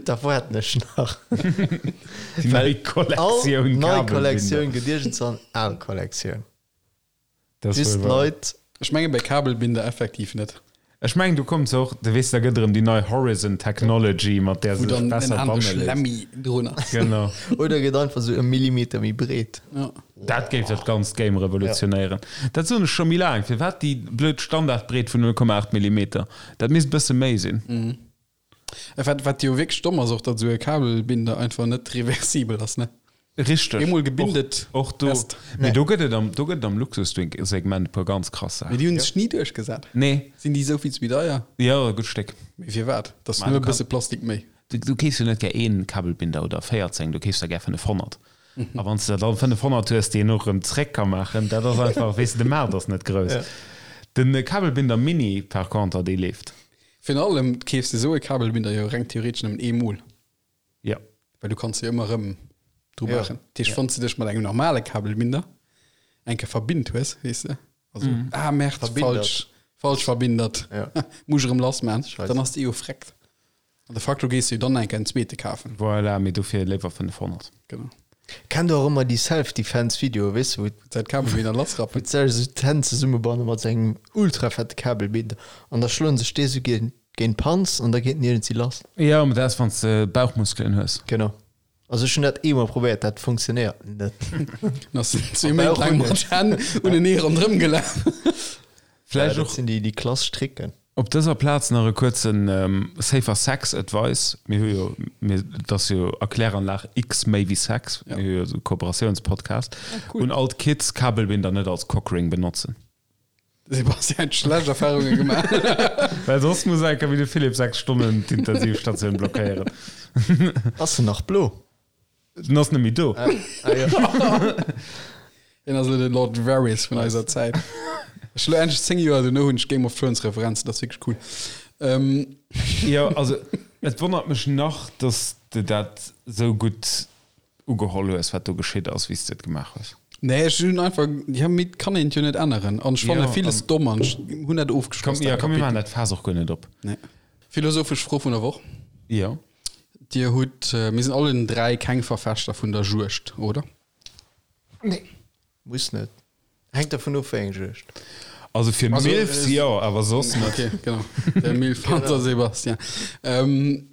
Da waarden ech nach. Déi nei Kollektioun All nei Kollektioun gëtt iergendzwann al Kollektioun. Dat ass Bis wuel wahr. d'Leit. Ech menge bei Kabelbinder effektiv net. Ech mengen do kommt se och, du weess, da gëtt erëm déi nei Horizon Technology, mat där Wou se sech dann en besser anere banne léisst. Schlemmi drun ass. Genau. Oder gëtt einfach sou e Millimeter méi breet. Ja. Dat géif dat ganzt Game revolutionéieren. Dat soen ech scho méi laang. Firwat déi blöd Standardbreet vun 0,8 Millimeter? Dat misst bësse méi sinn. Wat, wat jo wierklech domm ass och, datt esou e Kabelbinder einfach net reversibel ass, ne? Richteg. Eemol gebindet, Och, och do. fest. Mee do gëtt et am, do gëtt et am Luxussegment e puer ganz krass Mee Saachen. déi hunn sech ni duerchgesat. Nee. Sinn déi esou vill méi deier? Jo, e gutt Stéck. Mee firwat? Dat ass Ma nëmme du e bësse Plastik méi. Du, du keefs jo net gär een Kabelbinder oder 14, du keefs der gär 500. A wann s de der dann 500 hues, déi een och erëm zréck ka maachen, dat ass einfach, weess de, de Maart ass net grouss. Den Kabelbinder Mini par conter, dee leeft. Virun allem keefs de esou e Kabelbinder jo reng theoretesch nëmmen eemol. Jo. Well du kanns jo ëmmer erëm dru Ja. maachen. Dat heescht, wann s de dech mat engem normale Kabelbinder eng Kéier verbinnt hues, weess de, also, ah Merde, Verbindert. falsch, falsch verbindert, Ja. muss ech erëm lass maachen, Scheiße. dann ass de jo freckt. An de facto gees du jo dann eng Kéier en zweete kafen. Voilà, mee dofir léiwer 500. Genau. Kennt der och ëmmer déi Self-Defense-Videoe, weess de, wou Säit Kabelbinder lassrappen. wou d'Sech esou d'Hänn zesummebanne mat sou engem ultra fette Kabelbinder an da schloen sech déi esou géint géint d'Panz an da geet en iergendwéi lass. Jo, mee dat ass, wann s de Bauchmuskelen hues. Genau. Also ech hunn dat eemol probéiert, dat funktionéiert net. Dann ass en zwee Méint laang mat Hänn unenee ronderëm gelaf. Vläicht Ja, och dat sinn déi déi klassesch Tricken. Op dëser Plaz nach e kuerzen Safer Sex Advice. Mir hu jo, mir, et ass jo Erkläranlag X méi wéi Sex, mir hu jo esou e Kooperatiounspodcast. Un all d'Kids, Kabelbinder net als Cockring benotzen. De Sebastian huet schlecht Erfahrunge gemaach. Well soss muss enker wéi de Philippe 6 Stonnen d'Intensivstatioun blockéieren. Ass en nach blo? Den ass net méi do. Ah, jo. Hien ass elo de Lord Varys vun eiser Zäit. Ech elo endlech 10 Joer dono hunn ech Game of Thrones Referenzen, dat ass wierklech cool. Ähm. Jo, also et wonnert mech nach, dass de dat sou gutt ugeholl hues, wat do geschitt ass, wéi s de et gemaach hues. Nee, ech hunn einfach, ja, mee et kann een et jo net änneren. An ech fanne Jo, villes an- domm an ech hunn dat ofgeschloss, Komm, ja, dat komm, mir Kapitel. maachen dat Faass och guer net op. Nee. Philosophesch Fro vun der Woch. Jo. Dir hutt, mir sinn allen 3 keng Verfechter vun der Juegd, oder? Nee. Muss net. Hänkt dervun of, wéi eng Juegd. Also fir Also, Milfs äh, jo, awer soss net. Okay, genau. Der Milf Hunter Sebastian. Ähm,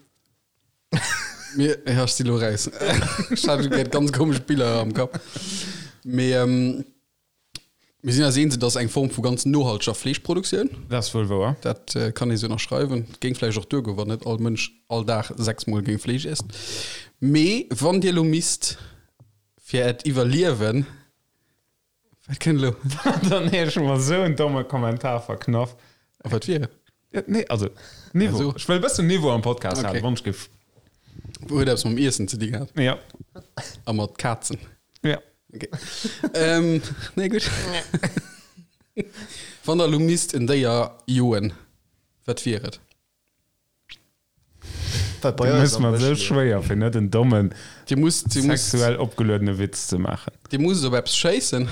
mir, ja, ech si lo raus. Ech hat grad ganz komesch Biller am Kapp. Mee ähm, mir sinn eis eens, et ass eng Form vu ganz nohalteger Fleeschproduktioun. Dat ass wuel wouer. Dat äh, kann ee sou ënnerschreiwen. Géing vläicht och duergoen, wann net all Mënsch all Dag sechsmol géing Fleesch iessen. Mee wann Dir lo misst fir Äert Iwwerliewen, wat kënnt elo? Dann hu ech mer esou en domme Kommentar verknaff. A wat wier et? Ja, nee, also Niveau. Also. Ech wëll e bëssen Niveau am Podcast Okay. halen, wann ech géif. Huet eppes mam Iessen ze di gehat Ja. a mat Kazen. Ja. Okay. ähm, nee, gutt. Wann der elo misst en Déier joen, wat wier et? Wat bei Du eis mëss am mer Bësch esou leeft. schwéier, fir net en dommen, Dir musst, dir musst, sexuell opgeluedene Witz ze maachen. dir musst op eppes schéissen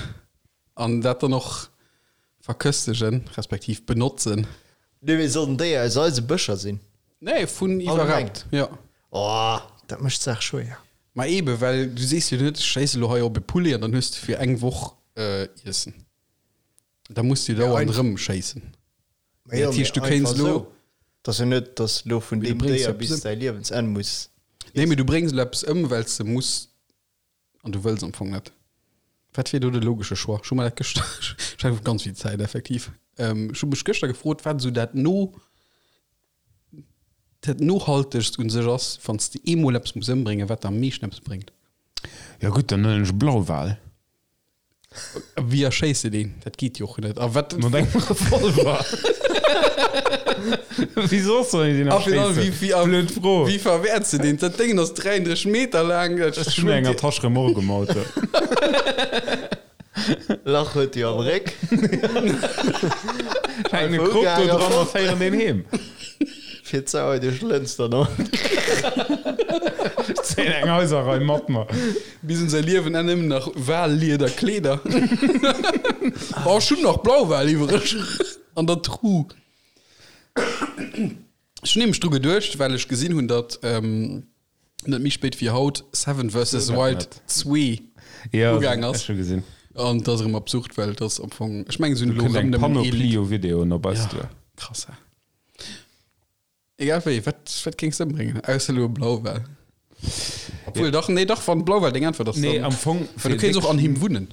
an dat dann och verköstegen, respektiv benotzen. Nee, mee soll den Déier aus eise Bëscher sinn? Nee, vun iwwerhaapt. Ja. Oh, dat mécht d'Saach schwéier. Ma ebe, well du sees jo net, ech schéisse lo hei op e Poulet an dann hues de fir eng Woch äh, Iessen. Da muss du dauernd einfach- rëm schéissen. Ma jo, Dat heescht, du mee kéints einfach lo- sou. Et ass jo net, dass du lo vun Mee du deem bréngs Déier eppes bis ëm. däi Liewensenn muss. Nee, mee du bréngs lo eppes ëm, well s de muss an du wëlls am Fong net. Wat wier do de logesche Choix? Ech hu mer dat gëschter, ech hat ganz vill Zäit effektiv. Ähm, ech hu mech gëschter gefrot, wat esou dat no, dat nohaltegst un sech ass, wann s de eemol eppes muss ëmbréngen, wat der am meeschten eppes bréngt. Ja gutt, dann huelen ech e Blauwal. Wéi erschéiss de deen? Dat geet jo och net. A wat Mat engem Revolver. Wéi soss soll een deen A virun allem, erschéissen? wéi, wéi, Blöd Fro. wéi verwäerts de deen? Dat Déngen ass 33 Meter laang. Dat Ech hunn enger Tasch Remorque um Auto. Lach huet jo am Réck. Hänken e Krop do dran a féieren deen heem. Fir d'Sauer duerch d'Lëns dann och. Ech zéien eng Haiserrei mat mer. Bis un säi Liewen Enn nëmmen nach Wallieder Kleeder. Oh, ech hunn nach Blauwal iwwereg an der Truh. Ech hunn nämlech dru geduecht, well ech gesinn hunn, datt net méi spéit wéi haut Seven vs. Wild 2 ugaang ass. An dat ass erëm absurd, well et ass am Fong, ech mengen, se hunn elo erëm nëmmen ee Lidd. Panoplie u Videoen op eis duer. Krass, hä? Egal wéi, wat, wat géings de ëmbréngen? Ausser elo e Blauwal. Obwuel, dach, nee, dach, wann Blauwal deng Äntwert ass, dann. Nee, am Fong. Well du kéints och an him wunnen.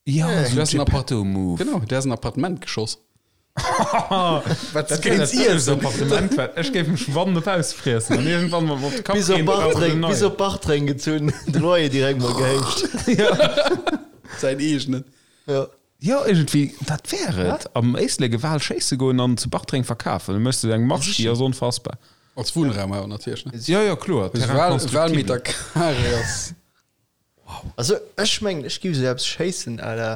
Ja, so ein Geppetto-Move. Genau, der ass en Appartement geschoss. Wat dat kéint iessen. Appartement war. Ech géif mech wann net ausfriessen an iergendwann mal op de Kapp Bis op Bartreng, bis op Bartreng gezunn, de Loyer direkt mol gehéicht. Säin eegenen. Ja. Jo, iergendwéi, dat wär et. Am Éislek e Wal schéisse goen an zu Bartreng verkafen. Da méchs de eng Marge, déi ass onfassbar. Als Wunnraum awer natierlech, ne? Jo, jo, kloer. Terrain constructible. Walmeter carré ass. Also ech mengen ech giff sou eppes schéissen à la,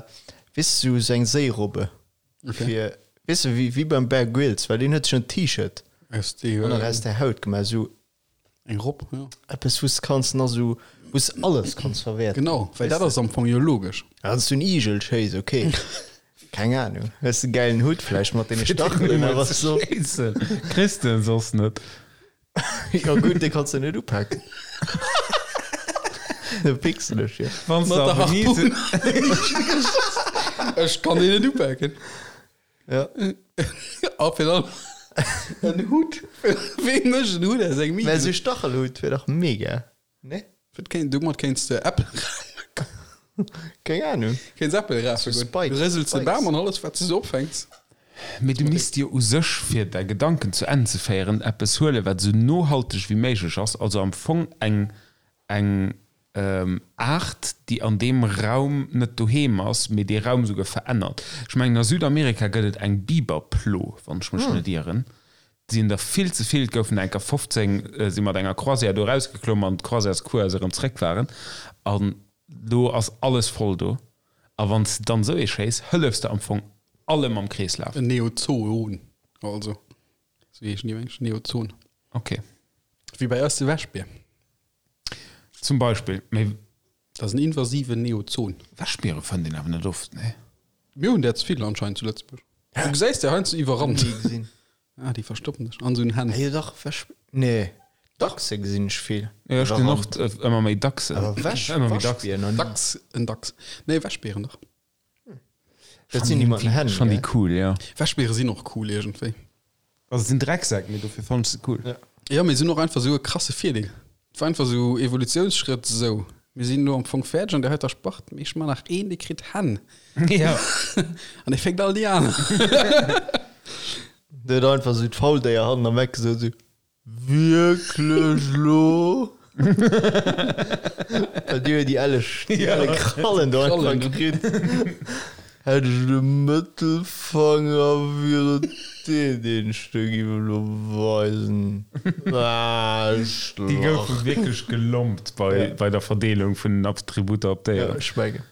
weess de, sou eng Séirobbe fir, weess de, wéi wéi beim Bear Grylls, well deen huet sech en T-Shirt an nach aus der Haut gemaach, sou Eng Robb, jo. Eppes wou s de kanns nach sou, wou s de alles kanns verwäerten. Genau, well dat ass am Fong jo logesch. Wann s du en Igel schéiss, ok, keng Ahnung, hues de gäilen Hutt vläicht mat deene Stachelen awer soss. Kriss de en soss net. Jo gutt, dee kanns de net upaken. De pixel ech jo. Wann s de Mat der a Venise. Harpun. Ech kann deen net upaken. Ja. A fir dann en Hutt. Wee mécht en Hutt aus engem Mä Igel? esou Stachelhutt wier dach mega, ne? Wat kéint, domat kéints de Äppel rafen. Keng Ahnung. Kéints Äppel rafe So goen. Spikes, Du rësels de Spikes. Bam an alles wat s de sou opfänks. Mee du misst jo u sech, fir däi Gedanken zu Enn ze féieren, eppes huelen, wat esou nohalteg wéi méiglech ass, also am Fong eng eng Aart, déi an deem Raum net doheem ass, mee dee Raum esouguer verännert. Ech mengen, a Südamerika gëtt et eng Biberplo, wann ech mech net ieren. Et sinn der vill ze vill, et goufen der enker 15, si mat enger Croisière do erausgeklomm an d'Croisièrescrew, als se erëm zréck waren, an do ass alles voll do. A wann s de dann esou ee schéiss, hëllefs de am Fong allem am Kreeslaf. En Neozoon, also, esou heeschen déi, meng ech, Neozon. Ok. Wéi bei eis de Wäschbier. Zum Beispill. Mee. Dat ass en invasiven Neozon. Wäschbiere fënnt een awer net oft, nee? Mir hunn där ze vill anscheinend zu Lëtzebuerg. Du gesäis der heiansdo iwwerrannt. Ni gesinn. Ah, déi verstoppen sech an esou en Hänn. Ah jo dach, Wäsch, nee, Dachse gesinn ech vill. Jo, ech gesinn och ëmmer méi Dachsen. Awer Wäsch, Ëmmer méi dacks. Waschbier nach ni. Dachs, en Dachs. Nee, Wäschbieren dach. Dat sinn déi mat den Hänn, Schon déi gell? cool, jo. Wäschbiere sinn och cool iergendwéi. Also et sinn Drecksäck, mee dofir fannen ech se cool. Ja. Jo, mee se hunn och einfach esou e krasse Virdeel. Et war einfach esou Evolutiounsschrëtt, esou, mir sinn elo am Fong fäerdeg an der heiter Spart, mee ech man nach een, dee kritt Hänn. Ja. An dee féckt all déi aner. Der huet einfach esou d'Fauldéier hannen am Eck gesot, esou, Wierklech lo? Well déi huet déi elleg, déi elle Krallen do einfach kritt. Hätt ech de Mëttelfanger, wier et deen, deen ech der giff elo weisen. Déi goufe wierklech gelompt bei, bei der Verdeelung vun den Attributer op Ja, Déieren. ech mengen.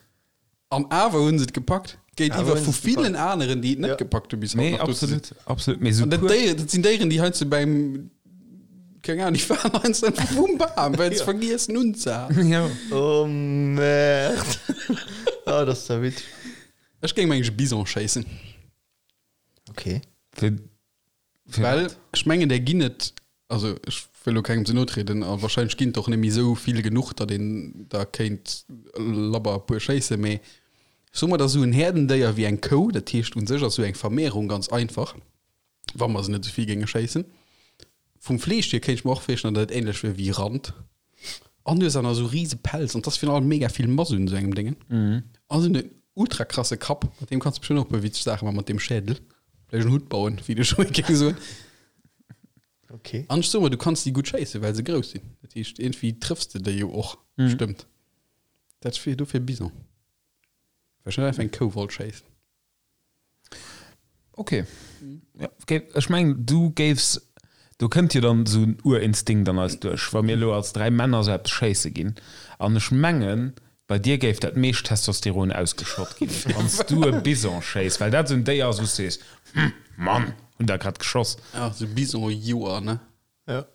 An awer hunn se et gepackt. Géintiwwer Awer vu hunn se et villen gepackt. aneren, déi et net Ja. gepackt hu bis haut Nee, nach do ze sinn. absolut, absolut. Mee sou An dat puer. Déier, dat sinn Déieren, déi heiansdo beim, keng Ahnung, déi waren heiansdo einfach vum Bam, well se vergiessen unzehalen. Ja. Oh Merde. Ah, dat ass da witzeg. Ech géing mengen e Bison schéissen. Okay. Fir, fir Well wat? ech mengen, där ginn et, also ech wëll elo kengem ze no trieden, a wahrscheinlech ginn et och net méi esou vill genuch, datt een der kéint labber e puer schéissen, mee soe mer, et ass esou en Häerdendéier wéi eng Kou, dat heescht u sech ass esou eng Vermehrung ganz einfach, wa mer se net esou vill géinge schéissen. Vum Fleesch hier kéint ech mer och virstellen, datt et ähnlech wier wéi Rand. An du hues awer nach esou rise Pelz an 't ass virun allem mega vill Mass un esou engem Déngen. An se hunn en ultra krasse Kapp, mat deem kanns du bestimmt och e puer witzeg Saache maachen, mat deem Schädel. Vläicht en Hutt bauen, wéi de Joé géing soen. Okay. An ech soe mer, du kanns déi gutt schéissen, well se grouss sinn. Dat heescht, iergendwéi trëffs de déi jo och bestëmmt. Dat wier dofir Bison. Well ech net einfach eng Kou wollt schéissen. Ok. Ja, okay. Ech mengen, du géifs, do kënnt jo dann esou en Urinstinkt an eis duerch, wa mir elo als 3 Männer esou eppes schéisse ginn. An ech mengen, bei dir géif dat meescht Testosteron ausgeschott ginn, wann s du e Bison schéiss, well dat esou en Déier ass, wou s du sees, Hm, Mann, hunn der grad geschoss. Ja, esou Bison-Joer, ne? Ja.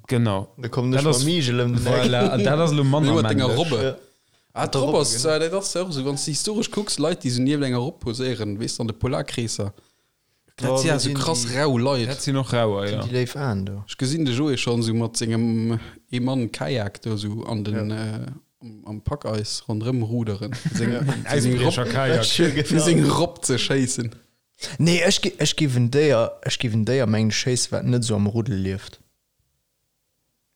Genau. Da kommen ech Dat ass- mam Igel ëm den Eck. Voilà, an dat ass elo manner Mat denger männlech. Robbe. Ja. Ah, d'Robb ass, dat ass jo och esou, wann s de historesch kucks, Leit, déi esou nieft enger Robb poséieren, weess de, an de Polarkreesser. Dat si ja esou krass rau Leit. Dat sinn och rauer, jo. Déi léif Aen do. Ech gesinn de Joé schonn esou mat sengem Ee-Mann-Kajak do esou an den, am Packeis ronderëm ruderen, fir seng, fir seng Robb, Äisbriecher-Kajak. fir seng Robb ze schéissen. Nee, ech gi, ech giff en Déier, ech giff en Déier mengen schéissen, wat net esou am Ruddel lieft.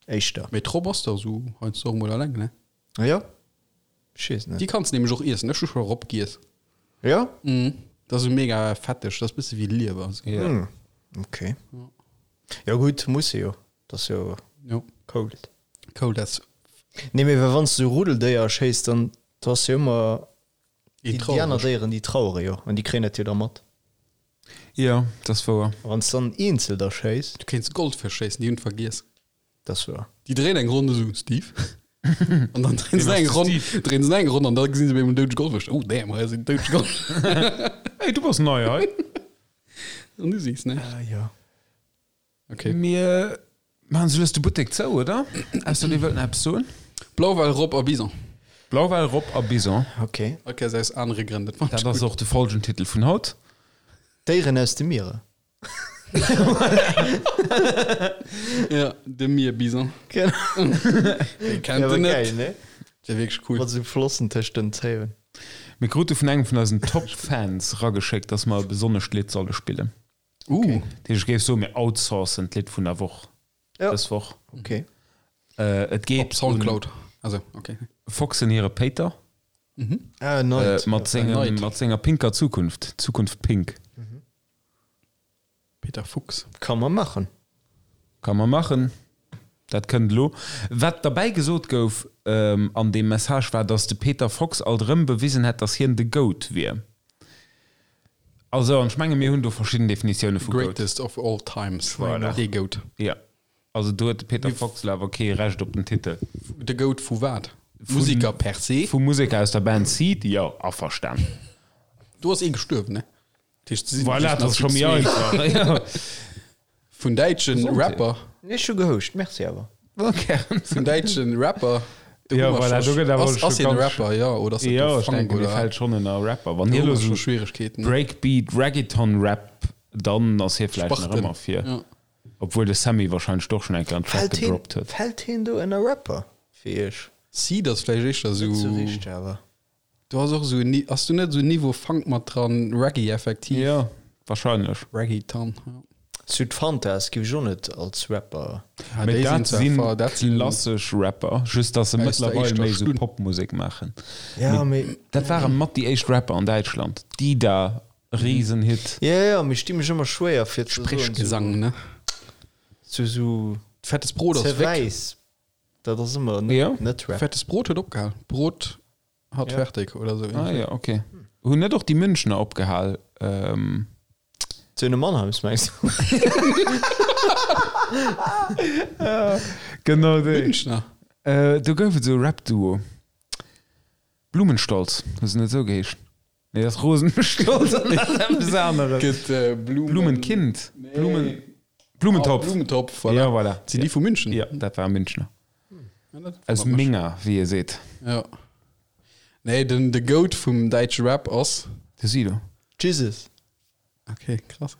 Éischter. Mee d'Robb ass dach esou heiansdo och emol alleng, ne? Ah jo? Ech weess net. Déi kanns de nämlech och iessen. Ech hu scho Robb giess. Jo? Mhm. Dat ass esou mega fetteg, dat ass bësse wéi Liewer. Esou. Ja. Hm. Ok. Jo gutt, muss se jo. Dat ass jo Jo. cold. Cold as Nee, mee well wann s de esou Ruddeldéier schéiss, dann do ass jo ëmmer een déi, déi aner traureg. Déieren, déi trauere jo an déi kréien dat jo da mat. Jo, dat ass wouer. A wann s de dann eenzel da schéiss. Du kéints Goldfësch schéissen, déi hunn et vergiess. Dat ass wouer. Déi dréien eng Ronn esou, Steve. An dann dréien se eng Ronn, dréien se eng Ronn an da gesinn se op eemol en doudege Goldfësch. Oh damn, hei ass en doudege Goldfësch. Hey, du bass nei hei. An du sees näischt. Ah jo. Okay. Mir maachen sou lues de Buttek zou, oder? Ausser dir wëllt nach eppes soen? Blauwal, Robb a Bison. Blauwal, Robb a Bison. Okay. Ok, ass aus anere Grënn. Dat fand Dat ech ass gutt. och de Folgentitel vun haut. Déieren aus de Mierer. Ja, de Mierbison. Genau. Wee kennt Ja, en net? geil, ne? Der wierklech cool. Mat sou Flossen tëscht den Zéien. Mir krute vun engem vun eisen Top-Fans rageschéckt, dass mer e besonnescht Lidd solle spillen. Uh. Dat heescht, ech géif soen, mir outsourcen d'Lidd vun der Woch Ja. dës Woch. Okay. Äh, et geet Op Soundcloud. Also, okay. un Foxen hire Péiter Ah, äh, Night. mat sengem, Night. mat senger pinker Zukunft. Zukunft pink. Peter Fuchs. Kann man machen. Kann man machen. Dat kënnt elo. Wat derbäi gesot gouf ähm, an deem Message war, dass de Peter Fox alt erëm bewisen hätt, dass hien de Goat wier. Also, an ech menge mir hunn do verschidden Definitioune vu Goat. Greatest of all times. Voilà. De Goat. Ja. Also do huet de Peter Fox elo awer kee Recht op den Titel. De Goat vu wat? Musiker per se? Vu Museker aus der Band Seed? Jo, averstan. Do ass ee gestuerwen, ne? Dat heescht, se sinn Voilà, just dat ass nach scho méi zwee. einfach. Ja. Vun däitschen Gesondheet. Rapper. Nee, ech hu gehouscht, merci awer. Gären. Vun däitschen Rapper. Do Ja, hu mer voilà, scho- do gëtt awer ass, scho ass hien e ganz- Rapper, ja, oder ass dat Ja, do ech Funk, denken, dee oder? fält schonn ënner Rapper. Wann Do hie hu elo mer scho sou Schwieregkeeten. Breakbeat, Reggaeton-Rap, dann ass hie vläicht nach Spachten. ëmmer fir. Ja. Obwuel de Sammy wahrscheinlech doch schon eng Kéier en Track Fällt hien, gedroppt huet. fällt hien do ënner Rapper fir iech? Seed ass vläicht éischter Net sou sou. richteg awer. Du has och sou en, ass du net sou Niveau Funk mat dran, Reggae effektiv? Ja, wahrscheinlech. Reggaeton, ja. Sud Fantas giff ech och net als Rapper. Ah, Mee déi dat sinn sinn zwar, dat sinn klassesch Rapper, just dass se Aus der mëttlerweil éischter méi sou Stunn. Popmusek maachen. Ja, mee. Dat ware mat déi éischt Rapper an Däitschland. Dida, Riesenhit. Ja, ja, mee ech di mech ëmmer schwéier fir ze soen, Sprechgesang, ne? sou, sou Fettes Brot ass ze weg. wäiss. Dat ass ëmmer net, Ja. net Rap. Fettes Brot huet opgehal. Brot hat Ja. fertig oder sou. Ah ja, okay. Hunn net och déi Münchner opgehal? Ähm, Söhne Mannheims mengs du? genau déi. Münchner. Äh, do gouf et sou e Rap-Duo. Blumenstolz, hu se net esou geheescht? Nee, dat ass Rosenstolz an dat ass eppes aneres. Gëtt äh, Blumen... Blumenkind. Nee. Blumen, Ah, Blumentopf. Blumentopf, voilà. Ja, voilà. Sinn déi vu München? Ja, dat war Münchner. Ja, dat Aus wonnert mech. Minger, wéi e seet. Ja. Nee, den de Goat vum däitsche Rap ass. De Sido. Jesus. Okay, krass.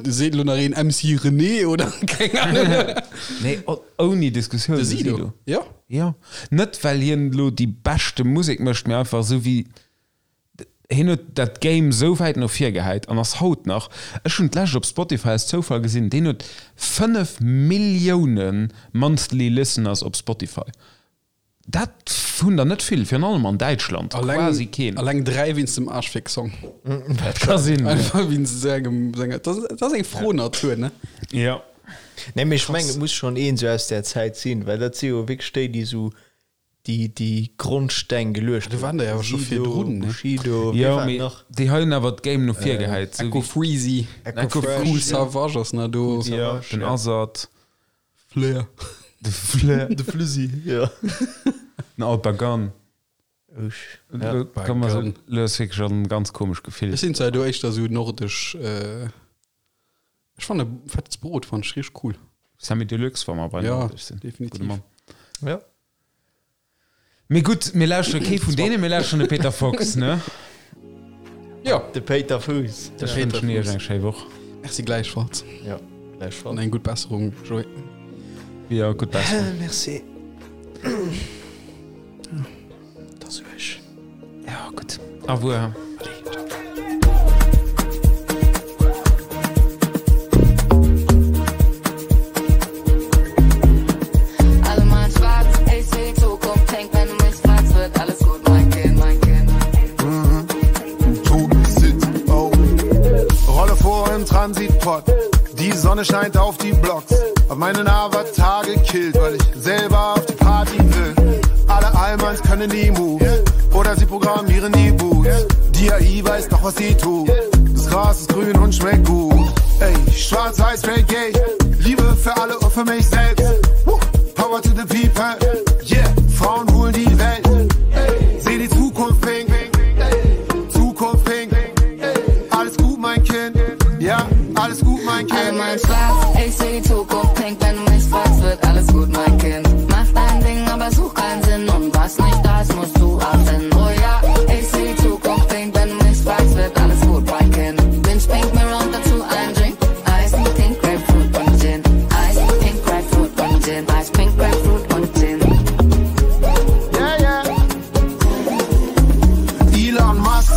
Seet lo nach een MC René oder keng Ahnung. Nee, ouni Diskussioun. De Sido. Ja. Ja. Net well hien lo déi beschte Musek mécht, mee einfach esou wéi hien huet dat Game sou wäit no vir gehäit an ass haut nach, ech hunn d'lescht op Spotify aus Zoufall gesinn, deen huet 5 Millioune monthly listeners op Spotify. Dat hunn der net vill, virun allem an Däitschland quasi keen. Alleng 3 wéinst dem Arschfick-Song. Dat ka sinn. Einfach wéinst sengem, senger, dat ass, dat ass eng froh Natur, ne? Ja. Nee, mee ech mengen, et muss schonn een esou aus där Zäit sinn, well dat si jo wierklech déi, déi esou déi, déi Grondsteng geluecht Do waren der jo awer scho virdrun, ne? Bushido, wee Jo, war mee nach? déi hei hunn awer d'Game no vir gehäit. Esou Echo wéi Freezy, Echo Fresh. Kool Savage ass nach do. ja, den Azad, Flair. de Flair, De Flüssi, ja. den Alpagan. Usch. Ja. Kann man so, lo ass wierklech en ganz komescht Gefill. Ech sinn zwar do éischter esou nordesch, äh, ech fanne Fettes Brot fann ech richteg cool. Samy Deluxe, wa mer bei Ja, Nordisch sinn. definitiv. Gudde Mann. Ja. Mee gutt, mir lauschtere kee vun deenen, mir lauschteren de Peter Fox, ne? Ja. De Péiter Fuuss. Ech wënschen iech eng schéi Woch. Merci gläichfalls. Ja, gläichfalls. An eng gutt Besserung, Joé. Ja, gutt Besserung. Merci. Dat ech. Ja, gutt. Au revoir. Allez, ciao. Alle mal schwarz, ich seh die Zukunft pink, wenn du mich fragst, wird alles gut, mein Kind, mein Kind. Toten oh. Rolle vor im Transitpott. Die Sonne scheint auf die Blocks. Hab meinen Avatar gekillt, weil ich selber auf die Party will. Alle Almans können die Moves. Oder sie programmieren die Boots. Die AI weiß doch, was sie tut. Das Gras ist grün und schmeckt gut. Ey, schwarz, weiß, straight, gay. Liebe für alle und für mich selbst. Woo. Power to the people. Yeah, Frauen holen die Welt. Seh die Zukunft pink. Zukunft pink. Alles gut, mein Kind. Ja, alles gut, mein Alle Kind. mal schwarz, ich seh die Zukunft pink, wenn du mich fragst, wird alles gut, mein Kind. Mach dein Ding, aber such keinen Sinn und was nicht da ist, musst du erfinden. Oh ja, ich seh die Zukunft pink, wenn du mich fragst, wird alles gut, mein Kind. Bin pink, mir und dazu ein Drink. Eis, pink, Grapefruit und Gin. Eis, pink, Grapefruit und Gin. Eis, pink, Grapefruit und Gin. Yeah, yeah. Elon Musk,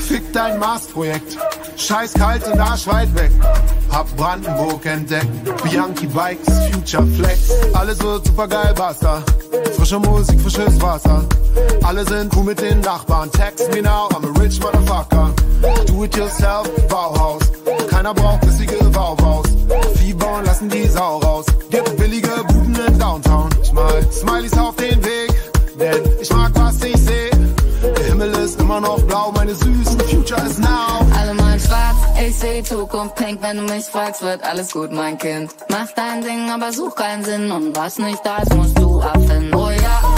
fick dein Mars-Projekt. Scheiß kalt und Arsch weit weg. Hab Brandenburg entdeckt. Bianchi Bikes, Future Flex. Alles wird supergeil, basta. Frische Musik, frisches Wasser. Alle sind cool mit den Nachbarn. Text me now, I'm a rich motherfucker. Do it yourself, Bauhaus. Keiner braucht bissige Wauwaus. Vieh bauen, lassen die Sau raus. Gibt billige Buden in Downtown. Ich mal Smileys auf den Weg, denn ich mag, was ich seh. Der Himmel ist immer noch blau, meine süßen Future is now. Alle mal schwarz, ich seh die Zukunft pink, wenn du mich fragst, wird alles gut, mein Kind. Mach dein Ding, aber such keinen Sinn und was nicht da ist, musst du erfinden. Oh ja.